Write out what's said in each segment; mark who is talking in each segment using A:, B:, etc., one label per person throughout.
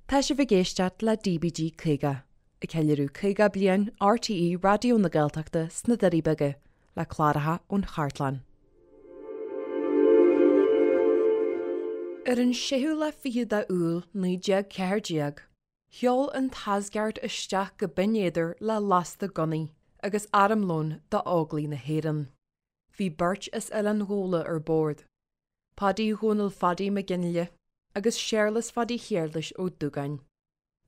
A: Tá sibh ag éisteacht le DBG 50, ag ceiliúradh 50 bliain RTÉ Raidió na Gaeltachta sna Doirí Beaga, le cláracha ón chartlann. Ar an séú lá fichead de Iúil 1914, sheol an tAsgard isteach go Binn Éadair le lasta gunnaí agus armlón d'Óglaigh na hÉireann. Bhí beirt as Oileán Ghabhla ar bord. Paidí Dhónaill Phadaí Mac Fhionnghaile agus Séarlas Phaidí Shéarlais Ó Dúgáin.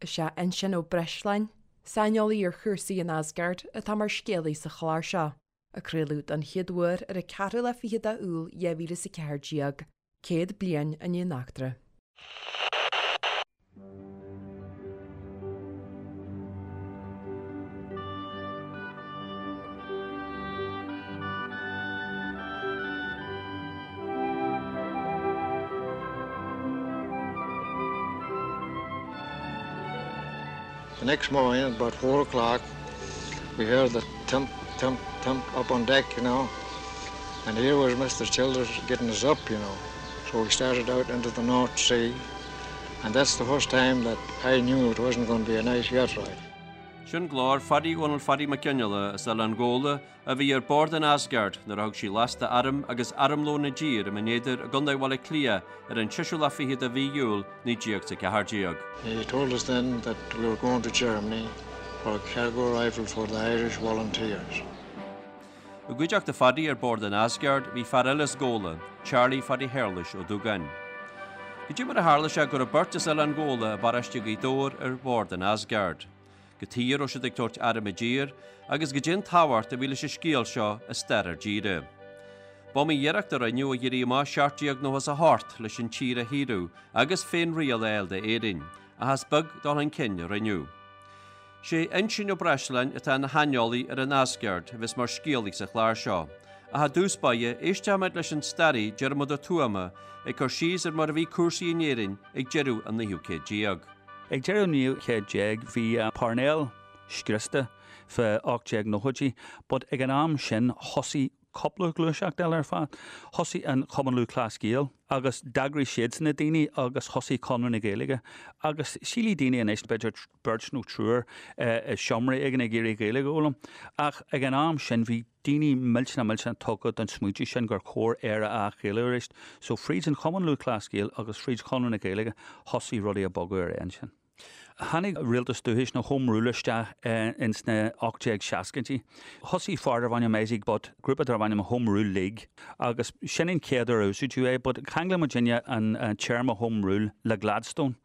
A: Is é Uinsionn Ó Breisleáin, saineolaí ar chúrsaí an Asgard, atá mar scéalaí sa chlár seo, a craoladh don chéad uair ar an ceathrú lá fichead de Iúil 2014, 100 bliain i ndiaidh an eachtra.
B: The next morning, at about four o'clock, we heard the thump, thump, thump up on deck, you know. And here was Mr. Childers getting us up, you know. So we started out into the North Sea, and that's the first time that I knew it wasn't going to be a nice yacht ride.
C: Sin glór Phadaí Dhónaill Phadaí Mac Fhionnghaile as Oileán Ghabhla a bhí ar bord an Asgard nuair a thug sí lasta airm agus armlón i dtír i mBinn Éadair i gContae Bhaile Átha Cliath ar an seisiú lá fichead de mhí Iúil 1914.
B: He told us then that we were going to Germany for a cargo rifle for the Irish Volunteers.
C: I gcuideachta Phadaí ar bord an Asgard bhí fear eile as Gabhla, Charlie Phadaí Shéarlais Ó Dúgáin. Cad é mar a tharla sé go raibh beirt as Oileán Ghabhla i bparóiste Ghaoth Dobhair ar bhord an Asgard? Cad chuige a raibh siad ag tabhairt airm i dtír agus cad é an tábhacht a bhí leis an scéal seo i stair ár dtíre. B'iomaí iarracht a rinneadh ag éirí amach 1798 leis an tír a shaoradh agus féin-riail a fháil d'Éirinn, ach is beag dul chun cinn a rinneadh. Sé Uinsionn Ó Breisleáin atá ina shaineolaí ar an Asgard a bheas mar scéalaí sa chlár seo. Ach i dtús báire, éistfimid leis an staraí Diarmuid Ó Tuama ag cur síos ar mar a bhí cúrsaí in Éirinn ag deireadh an naoú céad déag.
D: Ag deireadh an naoú céad déag bhí Parnell scriosta fá 1890idí but ag an am sin thosaigh cúpla gluaiseacht eile ar fad. Thosaigh an Cumann Lúthchleas Gael agus d'eagraigh siadsan na daoine agus thosaigh Conradh na Gaeilge agus sílfidh daoine anois b'fhéidir beirt nó triúr i seomra éigin ag iarraidh Gaeilge a fhoghlaim ach ag an am sin bhí daoine millteanach millteanach tugtha don smaointiú sin gur chóir Éire a athghaelú arís. So fríd an Chumann Lúthchleas Gael agus fríd Chonradh na Gaeilge thosaigh rudaí ag bogadh ar aghaidh ansin. Tháinig Rialtas Dúchais nó Home Rule isteach ins na 1860idí. Thosaigh fear darbh ainm Isaac Butt grúpa darbh ainm Home Rule League agus sin an chéad uair a úsáideadh é but cheangail muidinne an téarma Home Rule le Gladstone.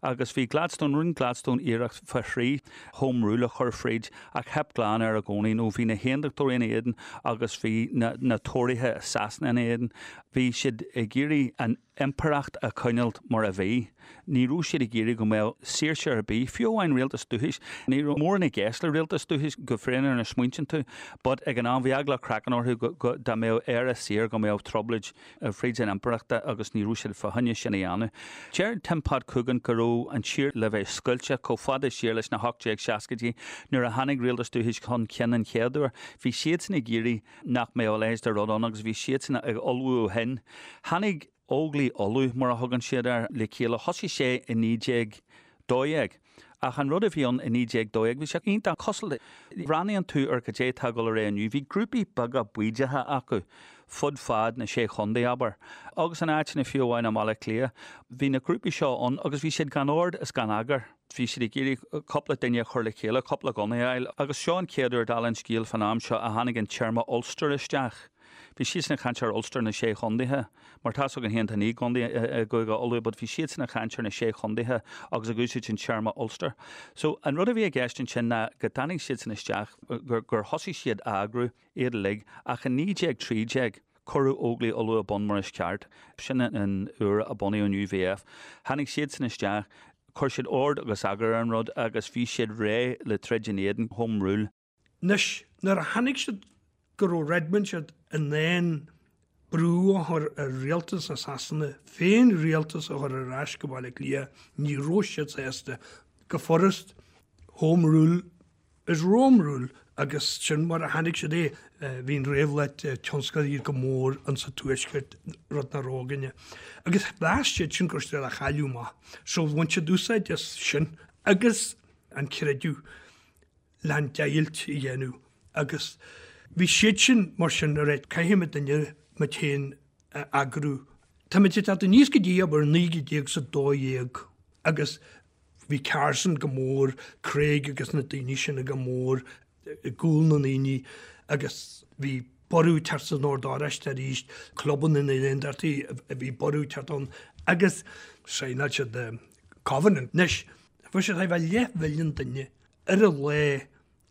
D: Agus bhí Gladstone, rinne Gladstone iarracht fá thrí Home Rule a chur fríd ach theip glan air i gcónaí nó bhí na hAontachtóirí ina éadan agus bhí na Tóraithe i Sasana ina éadan. Bhí siad ag iarraidh an impireacht a choinneáilt mar a bhí. Ní raibh siad ag iarraidh go mbeadh saoirse ar bith, fiú amháin rialtas dúchais. Ní raibh mórán i gceist le rialtas dúchais go fírinneach nuair a smaointíonn tú, but ag an am bhí eagla craicinn orthu go, go, dá mbeadh Éire saor go mbeadh trioblóid fríd an impireachta agus ní raibh siad fá choinne sin a dhéanamh. Deir Tim Pat Coogan go raibh an tír le bheith scoilte chomh fada siar leis na 1860idí nuair a tháinig rialtas dúchais chun cinn an chéad uair. Bhí siadsan ag iarraidh nach mbeadh a leithéid de rud ann agus bhí siadsan ag ullmhú ó shin. Tháinig Óglaigh Uladh, mar a thugann siad air, le chéile. Thosaigh sé i 1912. Ach an rud a bhí ann i 1912, bhí sé iontach cosúil le, bhreathnaíonn tú ar cad é atá ag dul ar aghaidh inniu, bhí grúpaí beaga baoideacha acu fud fad na Sé Chontae, abair, agus in áiteanna fiú amháin i mBaile Átha Cliath. Bhí na grúpaí seo ann agus bhí siad gan ord is gan eagar. Bhí siad ag iarraidh cúpla duine a chur le chéile, cúpla gunna a fháil, agus seo an chéad uair, dála an scéil, fán am seo a tháinig an téarma Ulster isteach. Bhí siadsan ag caint ar Ulster na Sé Chondaetha, mar tá's againn féin tá 9 gcontae i gCúige Uladh, but bhí siadsan ag caint ar na Sé Chondaetha agus ag úsáid an téarma Ulster. So, an rud a bhí i gceist ansin ná go dtáinig siadsan isteach, gur thosaigh siad a eagrú iad uilig, ach i 1913, Cuireadh Óglaigh Uladh ar bun mar is ceart. Sin an uair a bunaíodh an UVF. Tháinig siadsan isteach, chuir siad ord agus eagar ar an rud agus bhí siad réidh le troid in éadan Home Rule.
E: Anois, nuair a chonaic siad go raibh Redmond siad in ann brú a chur ar rialtas na Sasana féin-rialtas a chur ar ais go Baile Átha Cliath, ní raibh siad sásta. Go furast, Home Rule is Rome Rule. Agus sin mar a chonaic siad é. Bhí an réabhlóid tionsclaíoch go mór insa Tuaisceart, rud nach raibh againne. Agus mheas siad sin go raibh siad á chailleadh amach. So bhain siad úsáid as sin agus an creideamh le an deighilt a dhéanamh. Agus bhí siad sin mar sin, right, caithfidh muidinne muid féin a eagrú. Táimid ag teacht aníos go dtí abair 1912 agus Bhí Carson go mór, Craig agus na daoine sin go mór i gcúl na ndaoine agus bhí borradh ag teacht san Ord Oráiste arís, clubanna na nAondachtaí, bhí borradh ag teacht ann agus shaighneáil siad Covenant. Anois, bhí siad thar leathmhilliún duine ar an lá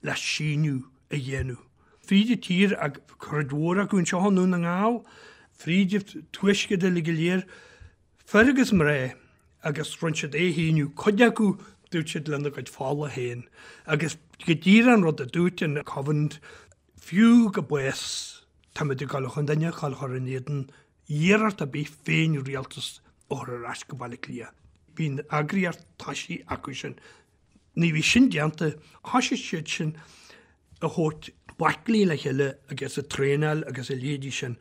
E: le síniú a dhéanamh. Fríd an tír, cuid mhór acu anseo i nDún na nGall, fríd an tuaisceart uilig go léir, Fir agus mná, agus rinne siad é a shíniú, cuid acu, dúirt siad lena gcuid fola féin, agus go díreach an rud a dúirt an Covenant, fiú go bás, táimid ag dul chun duine a chur chur in éadan iarracht ar bith féin-rialtas a chur ar ais go Baile Átha Cliath. Bhí an eagraíocht toisithe acu sin. Nuair a bhí sin déanta, thoisigh siad sin a thabhairt baicle le chéile agus ag traenáil agus a leithéidí sin.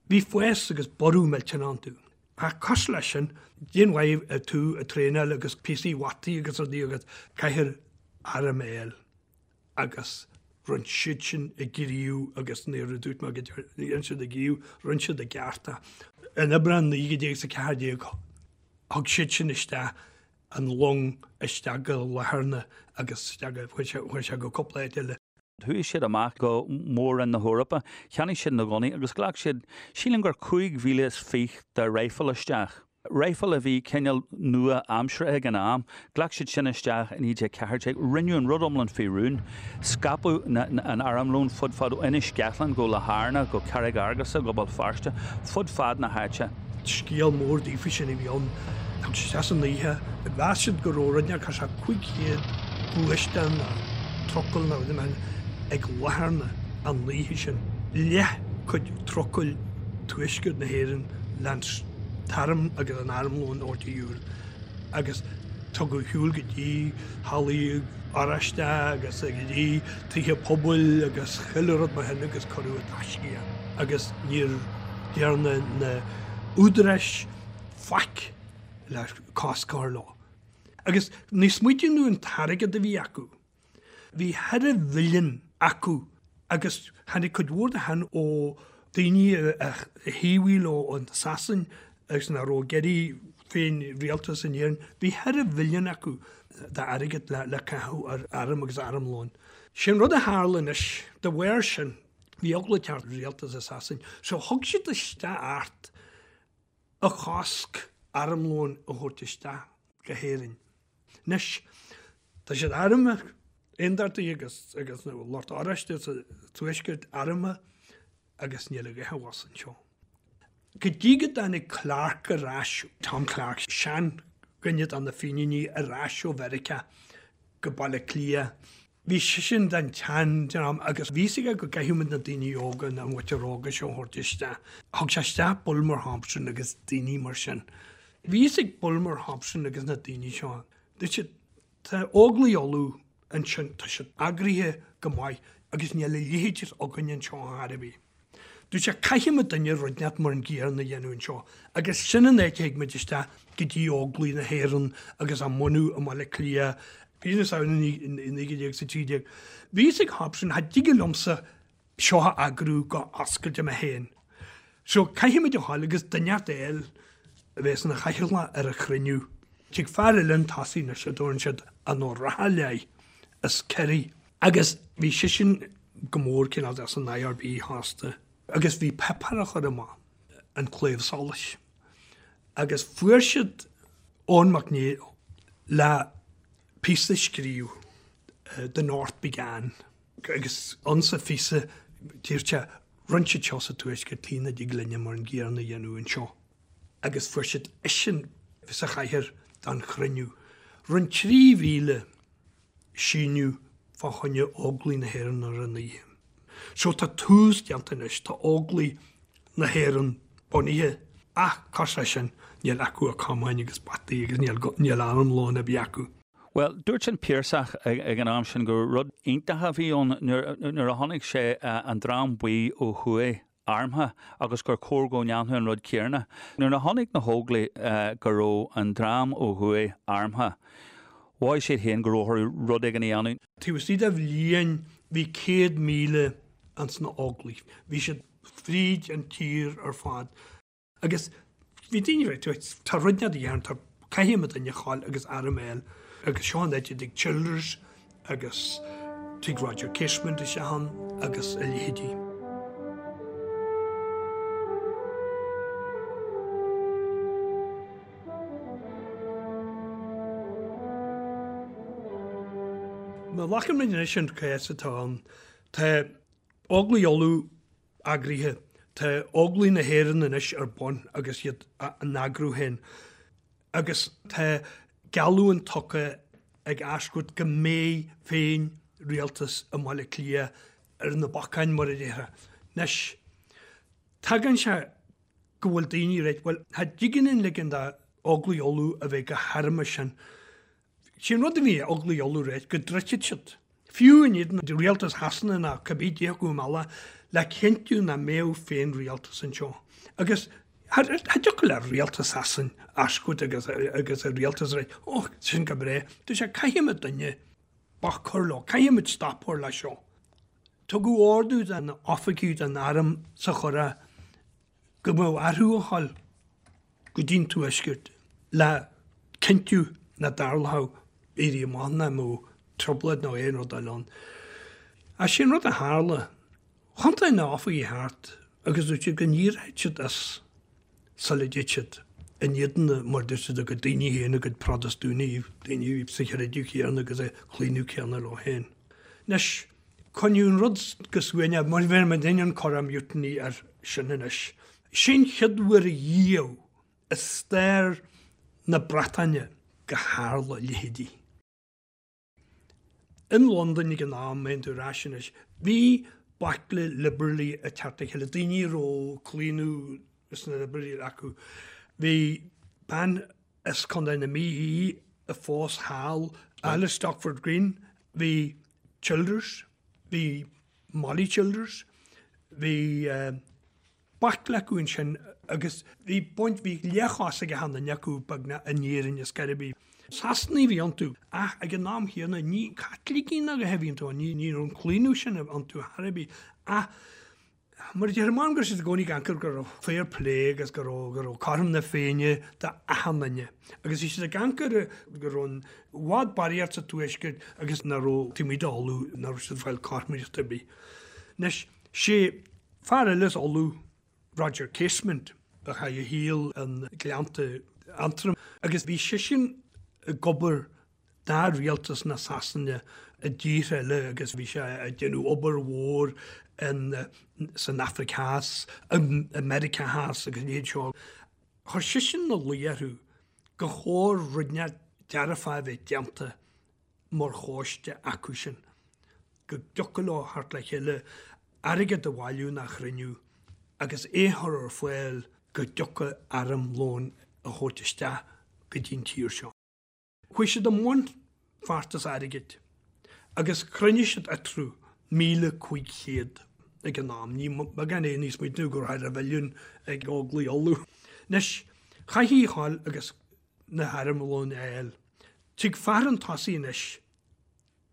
E: Bhí fás agus borradh millteanach iontu. Ach cosúil leis sin, cén mhaith tú ag traenáil agus píosaí bhataí agus rudaí agat, caithfear arm a fháil agus rinne siad sin a gníomh agus nuair a dúirt mé go dhein siad a ngníomh, rinne siad a gceart. In Aibreán 1914 thug siad sin isteach an long isteach go Latharna agus isteach go, chuaigh sé go cúpla áit eile.
D: Chuaigh siad amach go Mór-Roinn na hEorpa, cheannaigh siad na gunnaí agus ghlac siad, sílim gur 25,000 de raidhfil isteach. Raidhfil a bhí cineál nua-aimseartha ag an am. Ghlac siad sin isteach i 1914. Rinneadh an rud iomlán faoi rún. Scaipeadh an armlón fud fad ó Inis Ceithleann go Latharna go Carraig Fhearghusa go Béal Feirste, fud fad na háite.
E: Scéal mór daofa sin a bhí ann. Thug siad isteach san oíche. Mheas siad go raibh rud inteacht thart 500 gluaisteán nó trucail nó rud mar ag Latharna an oíche sin. Leath cuid trucail tuaisceart na hÉireann leis an t-arm agus an armlón a thabhairt ar shiúl agus tugadh ar shiúl go dtí hallaí Oráiste agus go dtí tithe pobail agus chuile rud mar shin agus cuireadh i dtaisce é agus níor dhearna na údaráis faic le cosc a chur leo. Agus ní smaoitíonn tú an t-airgead a bhí acu. Bhí ceithre mhilliún acu agus tháinig cuid mhór de shin ó daoine a thaobhaigh leo an Sasain agus nach raibh ag iarraidh féin rialtas in Éirinn. Bhí ceithre mhilliún acu d'airgead le caitheamh ar arm agus armlón. Sin rud a tharla anois de bharr sin. Bhí eagla ag teacht ar rialtas i Sasain so thug siad isteach acht a chosc armlón a thabhairt isteach go hÉirinn. Anois, tá siad armtha, aondachtaithe agus agus na lucht oráiste sa tuaisceart armtha agus níl a dhath abhus anseo. Go dtí go dtáinig Clarke ar ais, Tom Clarke, sean-dhuine de na Fíníní ar ais ó Mheiriceá go Baile Átha Cliath, Bhí seisean den tseandream agus bhí fhios aige go gcaithfidh muid na daoine óga, na muintir óga seo a thabhairt isteach. Thug sé isteach Bulmer Thompson agus daoine mar sin. Bhí fhios ag Bulmer Thompson agus na daoine seo, dúirt siad, tá Óglaigh Uladh ansin, tá siad eagraithe go maith agus níl a leithéid againn anseo ar chor ar bith. Dúirt sé, caithfidh muidinne rud inteacht mar an gcéanna a dhéanamh anseo agus sin an áit a thig muid isteach go dtí Óglaigh na hÉireann agus á mbunú i mBaile Átha Cliath mí na Samhna 1913. Bhí fhios ag Hobson, cha dtig liomsa seo a eagrú go oscailte mé féin. So caithfidh muid a ghabháil agus duine inteacht a fháil a bheas ina chathaoirleach ar an chruinniú. Tig fear eile chun tosaigh anois a dtabharann siad an Ó Raghallaigh as Ciarraí. Agus bhí seisean go mór cineál de san IRB fosta agus bhí páipéar á chur amach, An Claidheamh Soluis. Agus fuair siad Eoin Mac Néill le píosa a scríobh, The North Began, agus ann sa phíosa dúirt sé, rinne siad seo sa Tuaisceart, tuige nach dtig linne mar an gcéanna a dhéanamh anseo. Agus fuair siad eisean sa chathaoir don chruinniú. Rinne 3,000 síniú fá choinne Óglaigh na hÉireann ar an oíche. So tá tús déanta anois, tá Óglaigh na hÉireann bunaithe ach cosúil leis sin níl acu ach camáin agus bataí agus níl armlón ar bith acu.
D: Bhuel, dúirt an Piarsach ag an am sin gur rud iontach a bhí ann nuair a chonaic sé an Dream Buí ó thuaidh armtha agus gur chóir go ndéanfadh an rud céanna. Nuair a chonaic na hÓglaigh go raibh an dream ó thuaidh armtha, mhothaigh siad féin go raibh orthu rud éigin a dhéanamh.
E: Taobh istigh de bhliain bhí 100,000 ins na Óglaigh. Bhí siad fríd an tír ar fad. Agus bhí daoine ag rá, tá rud inteacht a dhéanamh, tá, caithfidh muid duine a ghabháil agus arm a fháil. Agus seo an áit a dtig Childers agus tig Roger Casement isteach ann agus a leithéidí. Má ghlacann muid anois an cás atá ann, tá Óglaigh Uladh eagraithe. Tá Óglaigh na hÉireann anois ar bun agus iad á n-eagrú féin agus tá geallúint tugtha ag Ashcourt go mbeidh féin rialtas i mBaile Átha Cliath ar na bacáin mar a déarfá. Anois, tagann sé go bhfuil daoine ag rá, bhuel, cha dtig linn ligean d'Óglaigh Uladh a bheith chomh harmtha sin. Sé an rud a bhí ag Óglaigh Uladh a rá go dtroidfeadh siad, fiú in éadan rialtas Shasana nó cibé cé acu um eile, le cinntiú nach mbeadh féin-rialtas anseo. Agus cha dtiocfadh le rialtas Shasana Ashcourt agus agus a rialtas a rá, oh, sin go breá. Dúirt sé, caithfidh muid duine bac a chur leo, caithfidh muid stop a chur leis seo. Tugadh ordú do na oifigigh den arm sa Churrach go mbeadh orthu a ghabháil go dtí'n Tuaisceart le cinntiú nach dtarlódh éirí amach ná mbeadh trioblóid nó aon rud eile ann. Ach sé an rud a tharla, thiontaigh na hoifigigh thart agus dúirt siad go n-éireodh siad as sula dtéid siad in éadan mar dúirt siad a gcuid daoine féin, a gcuid Protastúnaigh, daoine a bhí sa chreideamh chéanna agus sa chlaonadh céanna leo féin. Anois, Coinníodh an rud go suaimhneach, mar bheir muid an Curragh Mutiny air sin anois. Sin chéad uair riamh i stair na Breataine go tharla a leithéidí. In Londain ag an am, má théann tú ar ais anois, bhí baicle liobrálaigh ag teacht le chéile, daoine a raibh claonadh sna liobrálaigh acu. Bhí bean as Contae na Mí í a phós thall, Alice Stopford Green, bhí Childers, bhí Molly Childers, bhí baicle acu ansin agus bhí baint, bhí leathchás ag achan duine acu beagnach in Éirinn is ar bith. Sasanaigh a bhí iontu ach ag an am chéanna ní Caitlicigh ná a dhath a bhí iontu, ní raibh an claonadh sin iontu thar ar bith ach Mar a déarfá, m'anam go raibh siad i gcónaí ag amharc go raibh fair play agus go raibh, go raibh cothrom na Féinne d'achan duine. Agus bhí siad ag amharc go raibh i bhfad barraíocht sa Tuaisceart agus nach raibh taobh amuigh d'Ulaidh, nach raibh siad ag fáil cothromaíocht ar bith. Anois, sé fear eile as Ulaidh, Roger Casement, a chaith a shaol i nGleannta Aontroim agus bhí seisean ag obair do rialtas na Sasana i dtíortha eile agus bhí sé ag déanamh obair mhór in san Afraic Theas, i Meiriceá Theas agus a leithéid seo. Chuir seisean ina luí orthu gur chóir rud inteacht dearfach a bheith déanta mar choiste acu sin, go dtiocfadh leo theacht le chéile, airgead a bhailiú nó a chruinniú agus é a chur ar fáil go dtiocfadh armlón a thabhairt isteach go dtí'n tír seo. Chuaigh siad i mbun feachtas airgid agus chruinnigh siad eatarthu 1,500 ag an am, ní beagán é níos smaointiú go raibh thar mhilliún ag Óglaigh Uladh. Anois, chaithfí a ghabháil agus na harmlóin a fháil. Tig fear chun tosaigh anois.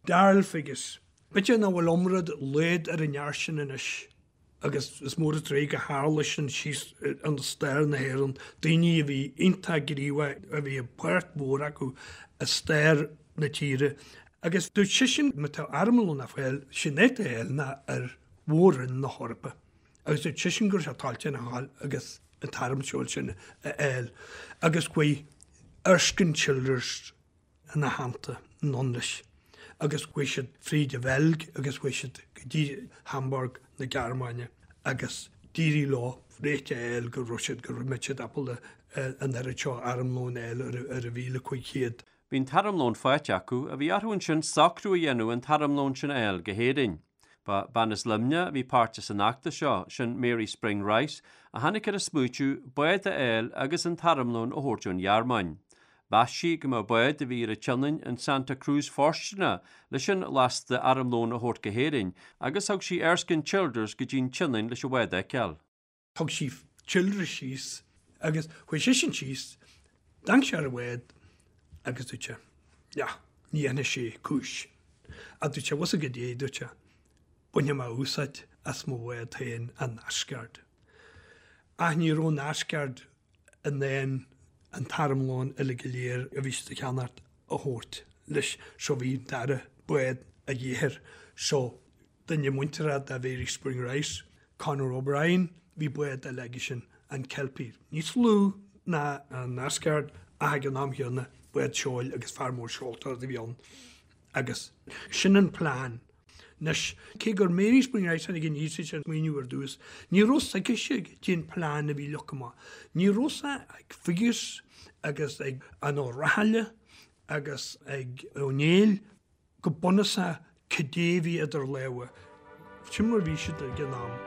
E: Darrell Figgis. B'fhéidir nach bhfuil iomrá dá laghad ar an fhear sin anois agus is mór an truaigh go tharla sin síos i stair na hÉireann, daoine a bhí iontach gníomhach, a bhí páirt mhór acu i stair na tíre. Agus dúirt seisean má tá armlón le fáil, sin é le fáil ná ar mhór-roinn na hEorpa. Agus dúirt seisean go raibh sé toilteanach a ghabháil agus an t-arm sin a fháil. Agus chuaigh Erskine Childers ina theannta anonn leis agus chuaigh siad fríd an Bheilg agus chuaigh siad go dtí Hamburg na Gearmáine agus d'éirigh leo réiteach a fháil go raibh siad, go raibh siad ábalta an oiread seo armlóin a fháil ar an 1,500.
C: Bhí an t-armlón faighte acu ach bhí orthu ansin socrú a dhéanamh an t-armlón sin a fháil go hÉirinn. Ba bean as Luimneach a bhí páirteach san fheachtas seo, sin Mary Spring Rice, a tháinig ar an smaoitiú bád a fháil agus an t-armlón a thabhairt ón Ghearmáin. Mheas sí go mbeadh bád a bhí ar an tSionainn, an Santa Cruz fóirsteanach leis an lasta armlóin a thabhairt go hÉirinn agus thug sí Erskine Childers go dtí an tSionainn leis an bhád a fheiceáil.
E: Thug sí Childers síos agus chuaigh seisean síos, d'amharc sé ar an bhád agus dúirt sé, Yeah, ní dhéanfaidh sé cúis. Ach dúirt sé, bhfuil a fhios agat goidé, dúirt sé, bainfidh mé úsáid as mo bhád féin, an Asgard. Ach ní raibh an Asgard in ann an t-armlón uilig go léir a bhí siad a cheannacht a thabhairt leis so bhí an dara bád a dhíth air so duine muinteartha de Mhary Spring Rice, Conor O'Brien, bhí bád eile aige sin, an Kelpie, níos lú ná an Asgard ach ag an am chéanna bád seoil agus fear mór seoltóireachta a bhí ann agus sin an plean. Anois, cé gur Mary Spring Rice a tháinig aníos leis an smaoineamh ar dtús, ní raibh 's aicise goidé an plean a bhí leagtha amach. Ní raibh 's ag Figgis agus ag an Ó Rathaille agus ag Ó Néill go bunúsach cad é a bhí idir lámha. Sin mar a bhí siad ag an am.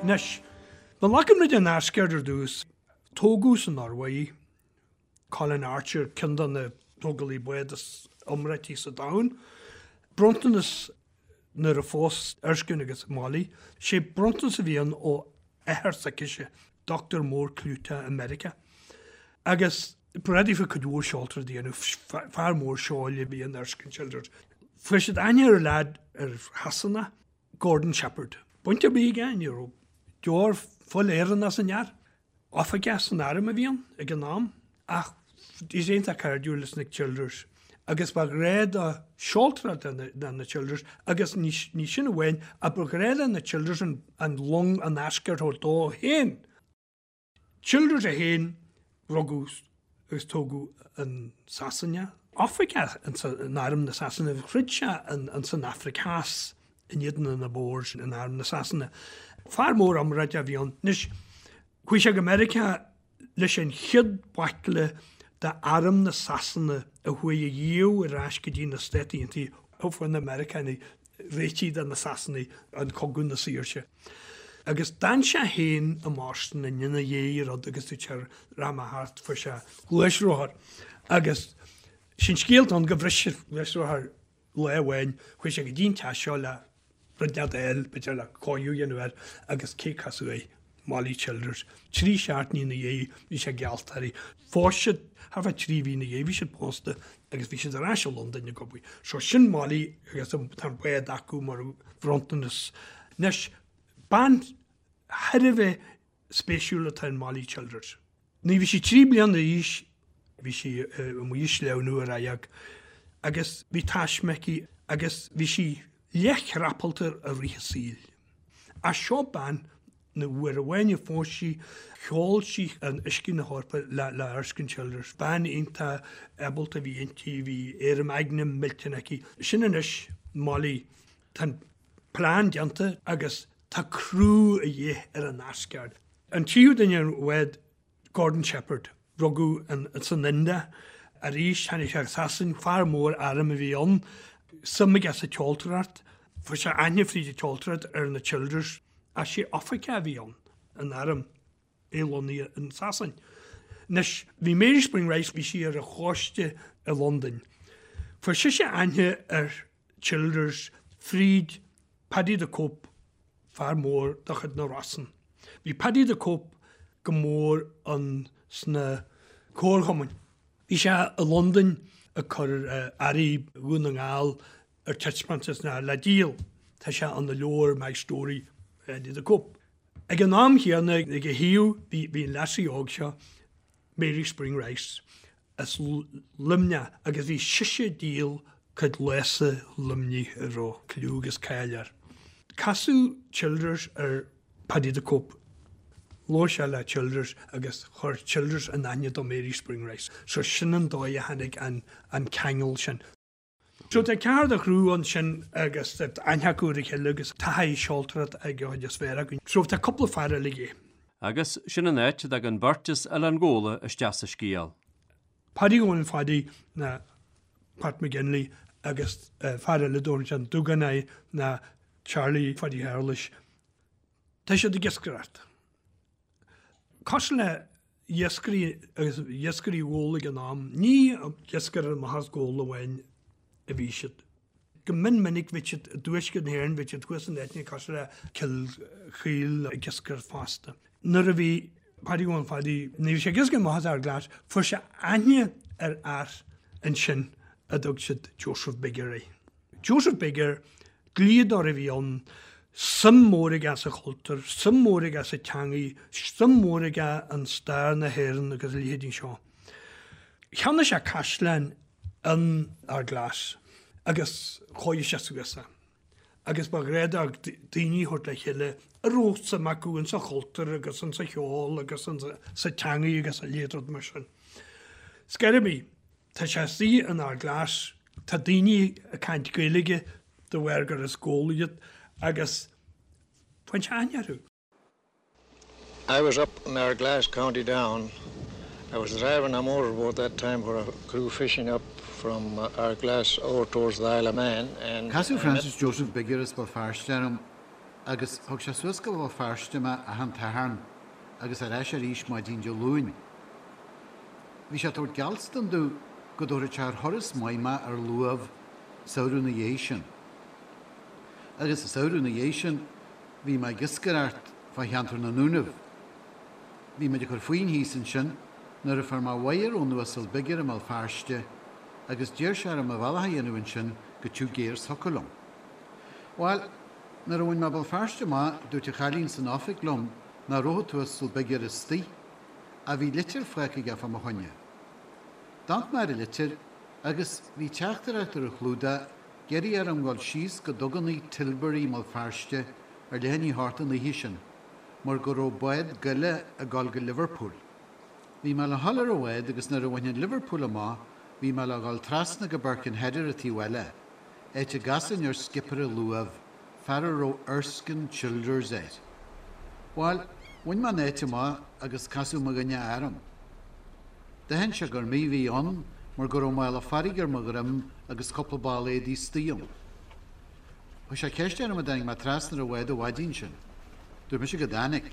E: Anois, má ghlacann muid an Asgard ar dtús, tógadh san Iorua í. Colin Archer, ceann de na tógálaithe bád is iomráití sa domhan. Bronntanas nuair a phós Erskine agus Molly, sé bronntanas a bhí ann ó athair s'aicise, dochtúir mór clúiteach i Meiriceá. Agus ba ready for cuid mhór seoltóireacht a dhéanamh, fear mór seoil a bhí in Erskine Childers. Fuair siad aithne ar leaid ar Shasana, Gordon Shepherd. Baint ar bith aige, ní raibh deoir fuil Éireannach san fhear. Oifigeach san arm a bhí ann ag an am ach bhí sé iontach cairdiúil leis na Childers agus ba ghnách dó seoltóireacht le na Childers agus ní sin amháin ach ba ghnách le na Childers an long an Asgard a thabhairt dó féin. Childers é féin, rugadh agus tógadh in Sasana. Oifigeach in arm na Sasana, throid sé in san Afraic Theas in éadan na Boers in arm na Sasana. Fear mór iomráiteach a bhí ann. Anois, chuaigh sé go Meiriceá leis an chéad bhaicle d'arm na Sasana a chuaigh a dhíobh ar ais go dtí na Stáit Aontaithe ó fuair na Meiriceánaigh réitithe de na Sasanaigh an Cogadh na Saoirse. Agus d'fhan sé féin i mBoston ina dhiaidh an rud agus dúirt sé rachaidh mé thart fuair sé gluaisrothar agus sin scéal atá ann go bhris an gluaisrothar lá amháin chuaigh sé go dtí an teach seo le rud inteacht a fháil b'fhéidir le cóiriú a dhéanamh air agus cé casadh air Molly Childers. 3 seachtainí ina dhiaidh bhí sé geallta uirthi. Phós siad thart fá 3 mhí ina dhiaidh bhí siad pósta agus bhí siad ar ais i Londain ag obair. So sin Molly agus tá an bád acu mar bhronntanas. Anois, bean thar a bheith spéisiúil atá in Molly Childers. Nuair a bhí sí 3 bliana d'aois bhí sí amuigh ag sleamhnú ar radharc agus bhí taisme aici agus bhí sí leathchrapalta i rith a saoil. Ach seo bean na uair amháin a phós sí, sheol sí in uiscí na hEorpa le Erskine Childers. Bean iontach ábalta a bhí inti, bhí éirim aigne millteanach aici. Sin anois Molly. Tá an plean déanta agus tá criú a dhíth ar an Asgard. An tríú duine ar an bhád, Gordon Shepherd. Rugadh san India. Arís tháinig sé go Sasain, fear mór airm a bhí ann. Suim aige sa tseoltóireacht. Fuair sé aithne fríd an tseoltóireacht ar na Childers. Ach sé oifigeach a bhí ann in arm, é lonnaithe in Sasain. Anois, bhí Mary Spring Rice, bhí sí ar an choiste i Londain. Fuair sise aithne ar Childers fríd Paddy the Cope, fear mór de chuid na Rosann. Bhí Paddy the Cope go mór ann sna comharchumainn. Bhí sé i Londain ag cur earraí Dhún na nGall ar taispeántas ná le díol. Tá sé ina leabhar My Story, Paddy the Cope. Ag an am chéanna ag a thaobh bhí an lassie óg seo, Mary Spring Rice, as Luimneach agus bhí sise ag díol cuid lása Luimnigh a raibh cliú agus cáil air. Casadh Childers ar Paddy the Cope. Labhair sé le Childers agus chuir Childers in aithne do Mary Spring Rice. So sin an dóigh a tháinig an ceangal sin. So tá ceathrar de chriú ansin agus tá aithne acu ar a chéile agus taithí seoltóireacht ag an chuid is fearr acu. So tá cúpla fear eile aige.
C: Agus sin an áit a dtagann beirt as Oileán Ghabhla isteach sa scéal.
E: Paddy Eoin Phaddy ná Pat McGinley. agus fear eile a dtabharann sé an Dúgán air ná Charlie Phaidí Shéarlais. Tá siad ag iascaireacht. Cosúil le iascairí agus iascairí Ghabhla ag an am, ní ag iascaireacht amach as Gabhla amháin a bhí siad. Go mion minic bhí siad i dtuaisceart na hÉireann, bhí siad thuas in áiteanna cosúil le Cill Chaoil ag iascaireacht fosta. Nuair a bhí Paddy Dhónaill Phadaí, nuair a bhí sé ag iascaireacht amach as Ard Glas, fuair sé aithne ar fhear ansin a dtug siad Joseph Bigger air. Joseph Bigger, dlíodóir a bhí ann, suim mhór aige sa chultúr, suim mhór aige sa teangaidh, suim mhór aige in stair na hÉireann agus a leithéidí seo. Cheannaigh sé caisleán in Ard Glas agus chóirigh sé suas é. Agus ba ghnách dó daoine a thabhairt le chéile a raibh suim acu insa chultúr agus insa cheol agus sa teangaidh agus a leithéid rud mar sin. Scor ar bith, Tá sé istigh in Ard Glas, tá daoine ag caint Gaeilge de bharr gur as Gabhla iad agus faigheann sé aithne orthu.
B: I was up in Ardglass, County Down. I was driving a motorboat that time for a crew fishing up from Ardglass over towards the Isle of Man and I
F: Casadh
B: met
F: Francis Joseph Bigger as Béal Feirste orm agus thug sé suas go Béal Feirste mé achan Satharn agus ar ais arís maidin Dé Luain. Bhí sé ag tabhairt geallstan domh go dtabharfadh sé ar thuras maith mé ar luamh samhradh na dhiaidh sin. Agus an samhradh na dhiaidh sin bhí mé ag iascaireacht fá cheantar na nDúnaibh. Bhí muid ag cur faoin thíos ansin nuair a fuair mé wire ón Uasal Bigger i mBéal Feirste agus d'iarr sé orm mo bhealach a dhéanamh ansin go Tigh Gairs thiocfadh liom. Bhail, nuair a bhain mé Béal Feirste amach dúirt an chailín san oifig liom nach raibh an tUasal Bigger istoigh. Ach bhí litir fágtha aige fá mo choinne. D'amharc mé ar an litir agus bhí teachtaireacht ar an chlúdach ag iarraidh orm dhul síos go dugannaí Tilbury i mBéal Feirste ar leath i ndiaidh a hocht an oíche sin mar go raibh bád goile ag dul go Liverpool. Bhí mé le dhul ar an bhád agus nuair a bhainfinn Liverpool amach bhí mé le dhul trasna go Birkenhead ar an taobh eile, áit a gcasfainn ar scipéir an luaimh. fear a raibh Erskine Childers air. Bhail, bhain mé an áit amach agus casadh mo dhuine orm. D'aithin sé gur mé a bhí ann mar go raibh mála farraige ar mo dhroim agus cúpla ball éadaí istigh ann. Chuir sé ceist orm an dtáinig mé trasna ar an bhád an mhaidin sin. Dúirt mise go dtáinig.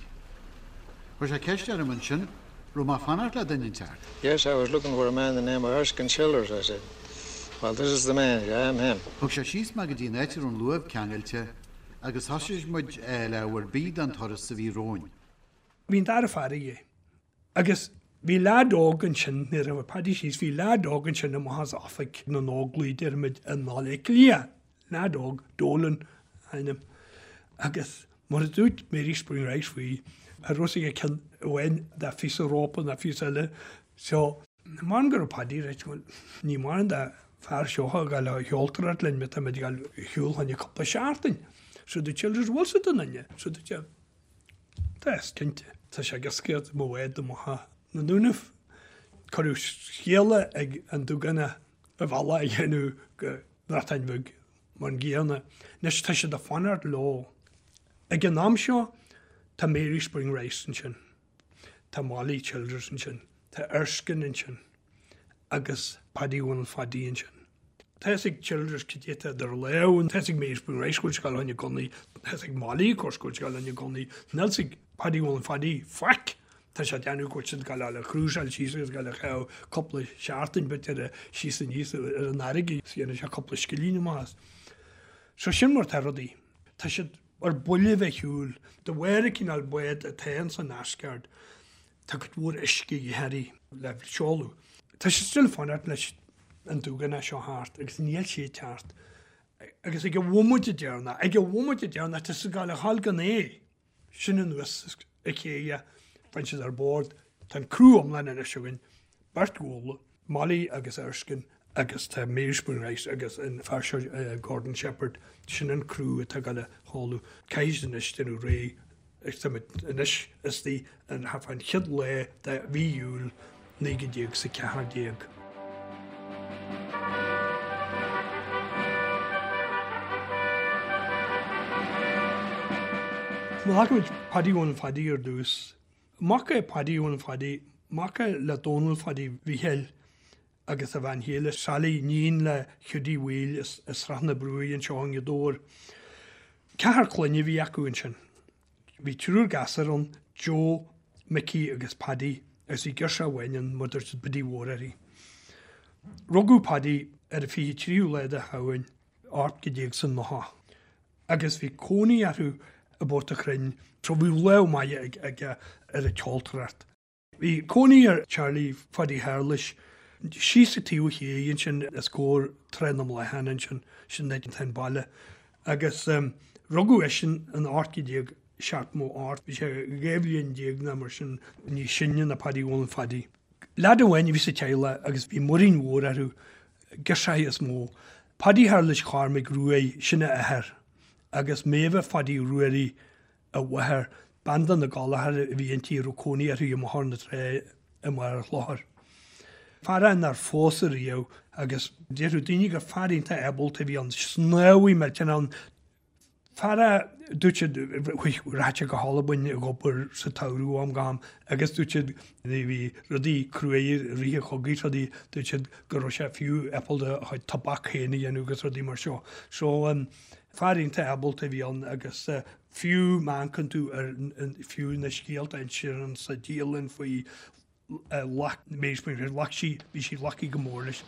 F: Chuir sé ceist orm ansin raibh mé ag fanacht le duine inteacht.
B: Yes, I was looking for a man the name of Erskine Childers, I said. Well, this is the man, I am him.
F: Thug sé síos mé go dtí an áit a raibh an luamh ceangailte agus thosaigh muid ag fáil ábhar bídh don turas a bhí romhainn.
E: Bhí an dara fear aige agus bhí leaid óg ansin, nuair a bhí Paddy síos, bhí leaid óg ansin amach as oifig na nÓglaigh, déarfaimid, i mBaile Átha Cliath. Leaid óg, Dolan a ainm, agus mar a dúirt Mary Spring Rice faoi, cha raibh fhios aige ceann amháin de phíosa rópa ná phíosa eile, so, Measaim go raibh Paddy right, bhuel, ní mórán de fear seo a ghabháil a sheoltóireacht linn má táimid ag dul ar shiúl fá choinne cúpla seachtain. So dúirt Childers, bhfuil 's a'd an duine? So dúirt sé, Tá, cinnte. Tá sé ag iascaireacht i mo bhád amach as na Dúnaibh. Cuireadh scéala ag an Dúgánach a bhealach a dhéanamh go Breatain Bheag mar an gcéanna. Anois tá siad ag fanacht leo. Ag an am seo tá Mary Spring Rice ansin, tá Molly Childers ansin, tá Erskine ansin agus Paddy Dhónaill Phadaí ansin. Tá fhios ag Childers cad é atá idir lámha, tá fhios ag Mary Spring Rice go bhfuil sé ag dul fá choinne gunnaí, tá fhios ag Molly of course go bhfuil sé ag dul fá choinne gunnaí, níl fhios ag Paddy Dhónaill Phadaí faic! Tá sé ag déanamh go bhfuil siad ag dul a chrúsáil síos agus ag dul a chaitheamh cúpla seachtain b'fhéidir síos aníos ar an fharraige is dhéanfaidh sé cúpla scillín amach as. So sin mar atá rudaí. Tá siad ar buile bheith ar shiúl. De bharr an cineál bád atá ins an Asgard tá cuid mhór uisce de dhíth uirthi le seoladh. Tá siad still ag fanacht leis an Dúgánach seo theacht agus níl sé ag teacht. Agus ag an bhomaite deireanach, ag an bhomaite deireanach tá siad ag dul a ghabháil gan é. Sin anuas an chéidh, faigheann siad ar bord, tá an criú iomlán anois againn, beirt Ghabhla, Molly agus Erskine agus tá Mary Spring Rice agus an fear seo Gordon Shepherd, sin an criú atá ag dul a sheoladh. Caithfidh siad anois déanamh réidh agus táimid anois istigh in thart fán chéad lá de mhí Iúil 1914. Má ghlacaimid Paddy Dhónaill Phadaí ar dtús, mac é Paddy Dhónaill Phadaí, mac é le Dónall Phadaí Mhíchíl. agus a bhean chéile Sally, níon le Hiúdaí Bhaoill as Srath na Brúighe anseo i nGaoth Dobhair. Ceathrar clainne a bhí acu ansin. Bhí triúr gasúr ann, Joe, Micí agus Paddy, agus bhí girseach amháin ann, mar a dúirt siad Biddy Mhór uirthi. Rugadh Paddy ar an 23ú lá de Shamhain 1890 agus bhí cónaí orthu i bPort a' Chrainn so bhí lámh maith aige ar an tseoltóireacht. Bhí cónaí ar Charlie Phaddy Shéarlais síos an taobh thiar ansin os comhair Trá na mBláthán ansin, sin áit atá an baile. Agus rugadh eisean in 1878, bhí sé 12 bhliain nó mar sin níos sine ná Paddy Dhónaill Phaddy. Leaid amháin a bhí sa teaghlach agus bhí muirín mhór orthu, girseachaí is mó. Paddy Shéarlais Chormaic Ruaidh, sin a athair, agus Méabha Phaddy Ruairí, a mháthair, bean de na Gallchóir a bhí inti a raibh cónaí uirthi i mBóthar na Trá i mBarr an Chlochair. Fear é nár phós ariamh agus déarfadh daoine gur fear iontach ábalta a bhí ann, snámhaí millteanach ann. Fear é, dúirt siad, rachadh sé go hAlbain ag obair sa tsamhradh ó am go ham agus dúirt siad nuair a bhí rudaí cruaidh i rith an chogaidh rudaí, dúirt siad go raibh sé fiú ábalta a chuid tobac féin a dhéanamh agus rudaí mar seo. So, Fear iontach ábalta a bhí ann agus fiú má amharcann tú ar fiú na scéalta a insítear sa dialann faoi luck Mary Spring ghlac sí, bhí sí lucky go mór leis.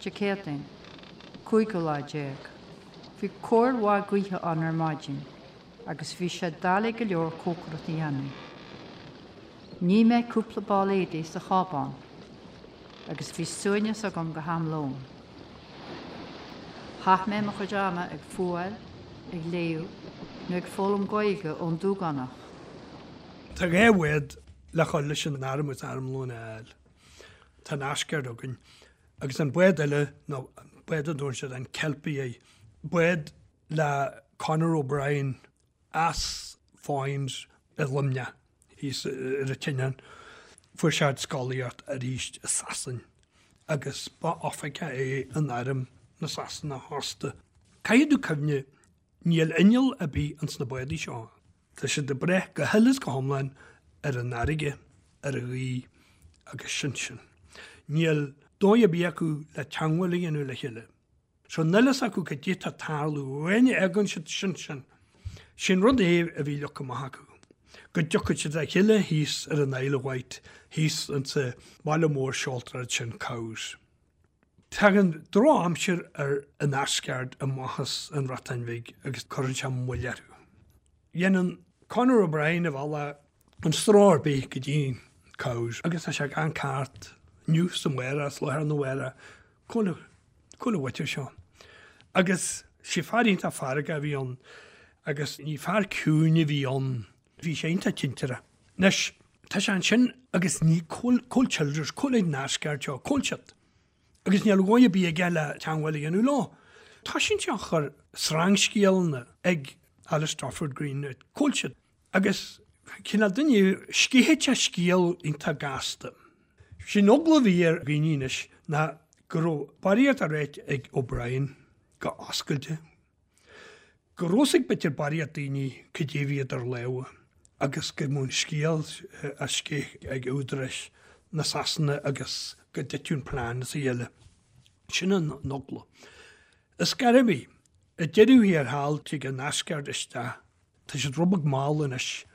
G: Dé Céadaoin, cúigiú lá déag. Bhí cóir mhaith gaoithe ann ar maidin agus bhí sé doiligh go leor cócaireacht a dhéanamh. Nigh mé cúpla ball éadaí sa chábán agus bhí suaimhneas agam go ham lóin. Chaith mé mo chuid ama ag fuáil, ag léamh nó ag foghlaim Gaeilge ón Dúgánach.
E: Tá 2 bhád le dhul leis an arm agus armlón a fháil. Tá an Asgard againn agus an bád eile nó bád a dtugann siad an Kelpie air, bád le Conor O'Brien as Foynes i Luimneach thíos ar an tSineán. Fuair sé scolaíocht arís i Sasain agus ba oifigeach é in arm na Sasana fosta. Caithfidh tú cuimhneamh, níl inneall ar bith ins na bádaí seo. Tá siad ag brath go huile is go hiomlán ar an fharraige, ar an ghaoth agus sin sin. Níl dóigh ar bith acu le teangmháil a dhéanamh le chéile. So níl fhios acu cad é tá ag tarlú, uain a fhágann siad sin sin. Sin rud é a bhí leagtha amach acu, go dtiocfadh siad le chéile thíos ar an Isle of Wight, thíos insa bhaile mór seoltóireachta sin, Cowes. Tagann drochaimsir ar an Asgard amach as an Bhreatain Bhig agus cuireann sé moill orthu. Dhéanann Conor O'Brien a bhealach gan stró ar bith go dtí Cowes agus tá sé gan cairt inniu is amárach is lá arna mhárach. Cá bhfuil, cá bhfuil an mhuintir seo? Agus sé fear iontach feargach a bhí ann agus ní fear ciúin a bhí ann, bhí sé iontach tintearach. Anois, tá sé ansin agus ní, cá bhfuil, cá bhfuil Childers, cá bhfuil an Asgard seo, cá bhfuil siad? Agus níl dóigh ar bith aige le teangmháil a dhéanamh leo. Toisíonn sé a chur sreangscéalanna ag Alistair Green, cá bhfuil siad? Agus cineál duine, sceitheann sé scéal iontach gasta. Sé'n eagla a bhí ar dhaoine anois ná go raibh barraíocht á ráit ag O'Brien go oscailte, go raibh fhios ag b'fhéidir barraíocht daoine cad é a bhí idir lámha agus go mbeadh an scéal á sceith ag údaráis na Sasana agus go dtitfeadh an plean as a chéile. Sin an eagla. Ar scor ar bith, ag deireadh thiar thall tig an Asgard isteach Tá siad rud beag mall anois.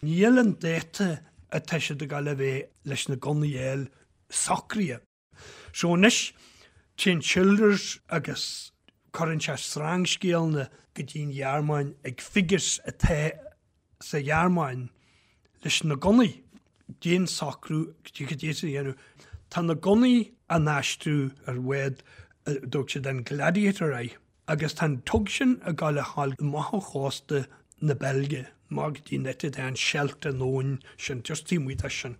E: Níl an dáta atá siad ag dul a bheith leis na gunnaí a fháil socraithe. So anois téann Childers agus cuireann sé sreangscéalanna go dtí an Ghearmáin ag figures atá sa Ghearmáin leis na gunnaí. Déan socrú cad é a dhéanamh. Tá na gunnaí á n-aistriú ar bhád a dtug siad an Gladiator air. Agus tá an tug sin ag gabháil a ghabháil amach ó chósta na Beilge, amach go dtí an áit atá an Scheldt an abhainn sin, just taobh amuigh de sin.